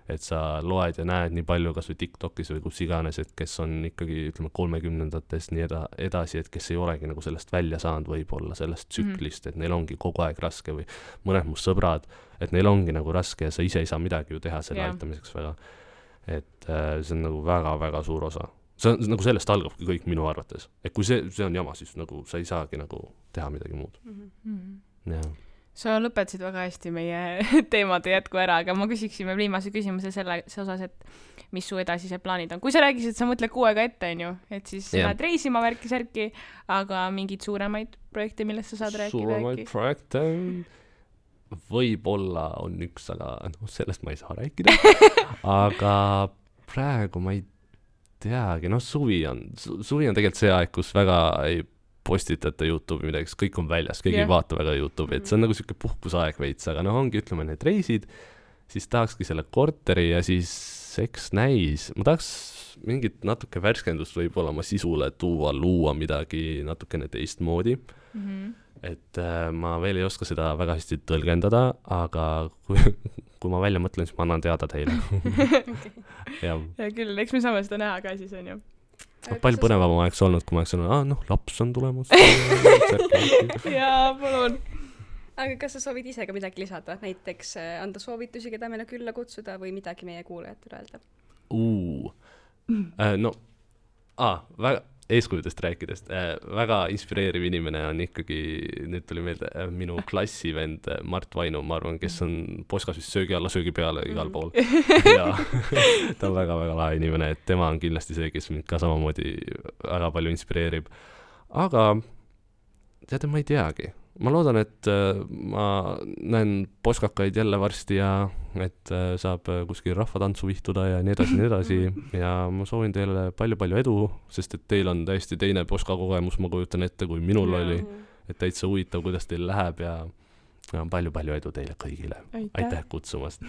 et sa loed ja näed nii palju kas või TikTokis või kus iganes, et kes on ikkagi, ütleme, 30-ndates nii edasi, et kes ei olegi nagu sellest välja saanud võib-olla sellest tsüklist, et neil ongi kogu aeg raske või mõned mu sõbrad, et neil ongi nagu raske ja sa ise ei saa midagi ju teha selle aitamiseks väga. Et see on nagu väga-väga suur osa. See on, nagu sellest algabki kõik minu arvates. Et kui see on jama, siis nagu sa ei saagi nagu teha midagi muud. Jah. Sa lõpetasid väga hästi meie teemade jätku ära, aga ma küsiksime viimase küsimuse selle osas, et mis su edasised plaanid on. Kui sa räägisid, et sa mõtled 6 aega ette, on ju, et siis lähed reisima värki-särki, aga mingid suuremaid projekte, millest sa saad rääkida? Suuremaid projekte võib-olla on üks, aga sellest ma ei saa rääkida. Aga praegu ma ei teagi, suvi on tegelikult see aeg, kus väga ei postitata YouTube'i midagi, sest kõik on väljas, keegi ei vaata väga YouTube'i, et see on nagu siuke puhkusaeg veits, aga noh, ongi, ütleme, need reisid, siis tahakski selle korteri ja siis eks näis, ma tahaks mingit natuke värskendust võib-olla oma sisule tuua, luua midagi natukene teistmoodi. Et ma veel ei oska seda väga hästi tõlgendada, aga kui ma välja mõtlen, siis ma annan teada teile. Ja küll, eks me saame seda näha ka siis, on ju. Palju põnevam oleks olnud, kui ma oleks olnud, laps on tulemas. Jaa, palun. Aga kas sa soovid ise ka midagi lisada? Näiteks anda soovitusi, keda meile külla kutsuda või midagi meie kuulajatele öelda? Väga eeskujudest rääkidest. Väga inspireeriv inimene on ikkagi, nüüd tuli meelde, minu klassivend Mart Vainu, ma arvan, kes on poskas vist söögi alla, söögi peale igal pool. Ja ta on väga-väga lahe inimene, et tema on kindlasti see, kes mind ka samamoodi väga palju inspireerib. Aga teate, ma ei teagi. Ma loodan, et ma näen poskakaid jälle varsti ja et saab kuskil rahvatantsu vihtuda ja nii edasi ja ma soovin teile palju-palju edu, sest et teil on täiesti teine poskakogemus, ma kujutan ette, kui minul oli, et täitsa huvitav, kuidas teil läheb ja palju-palju edu teile kõigile. Aitäh kutsumast!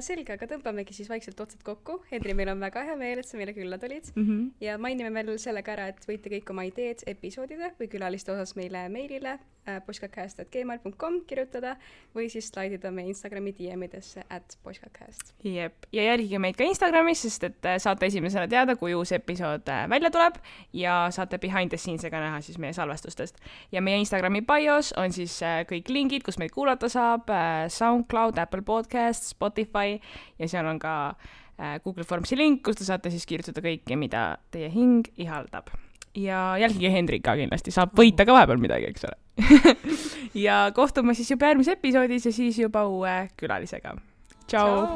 Selge, aga tõmbamegi siis vaikselt otsad kokku. Henri, meil on väga hea meel, et sa meile külla tulid. Ja mainime veel sellega ära, et võite kõik oma ideed episoodide või külaliste osas meile meilile poskakast@gmail.com kirjutada või siis slaidida meie Instagrami DM-idesse @poskakast. Jep, ja jälgige meid ka Instagramis, sest et saate esimesena teada, kui uus episood välja tuleb ja saate behind the scenes'ega näha siis meie salvestustest. Ja meie Instagrami bios on siis kõik lingid, kus meid kuulata saab, SoundCloud, Apple Podcasts, Spotify ja seal on ka Google Formsi link, kus te saate siis kirjutada kõike, mida teie hing ihaldab. Ja jälgige Hendrik ka kindlasti, saab võita ka vahepeal midagi, eks ole. Ja kohtume siis juba järgmises episoodis ja siis juba uue külalisega. Tšau!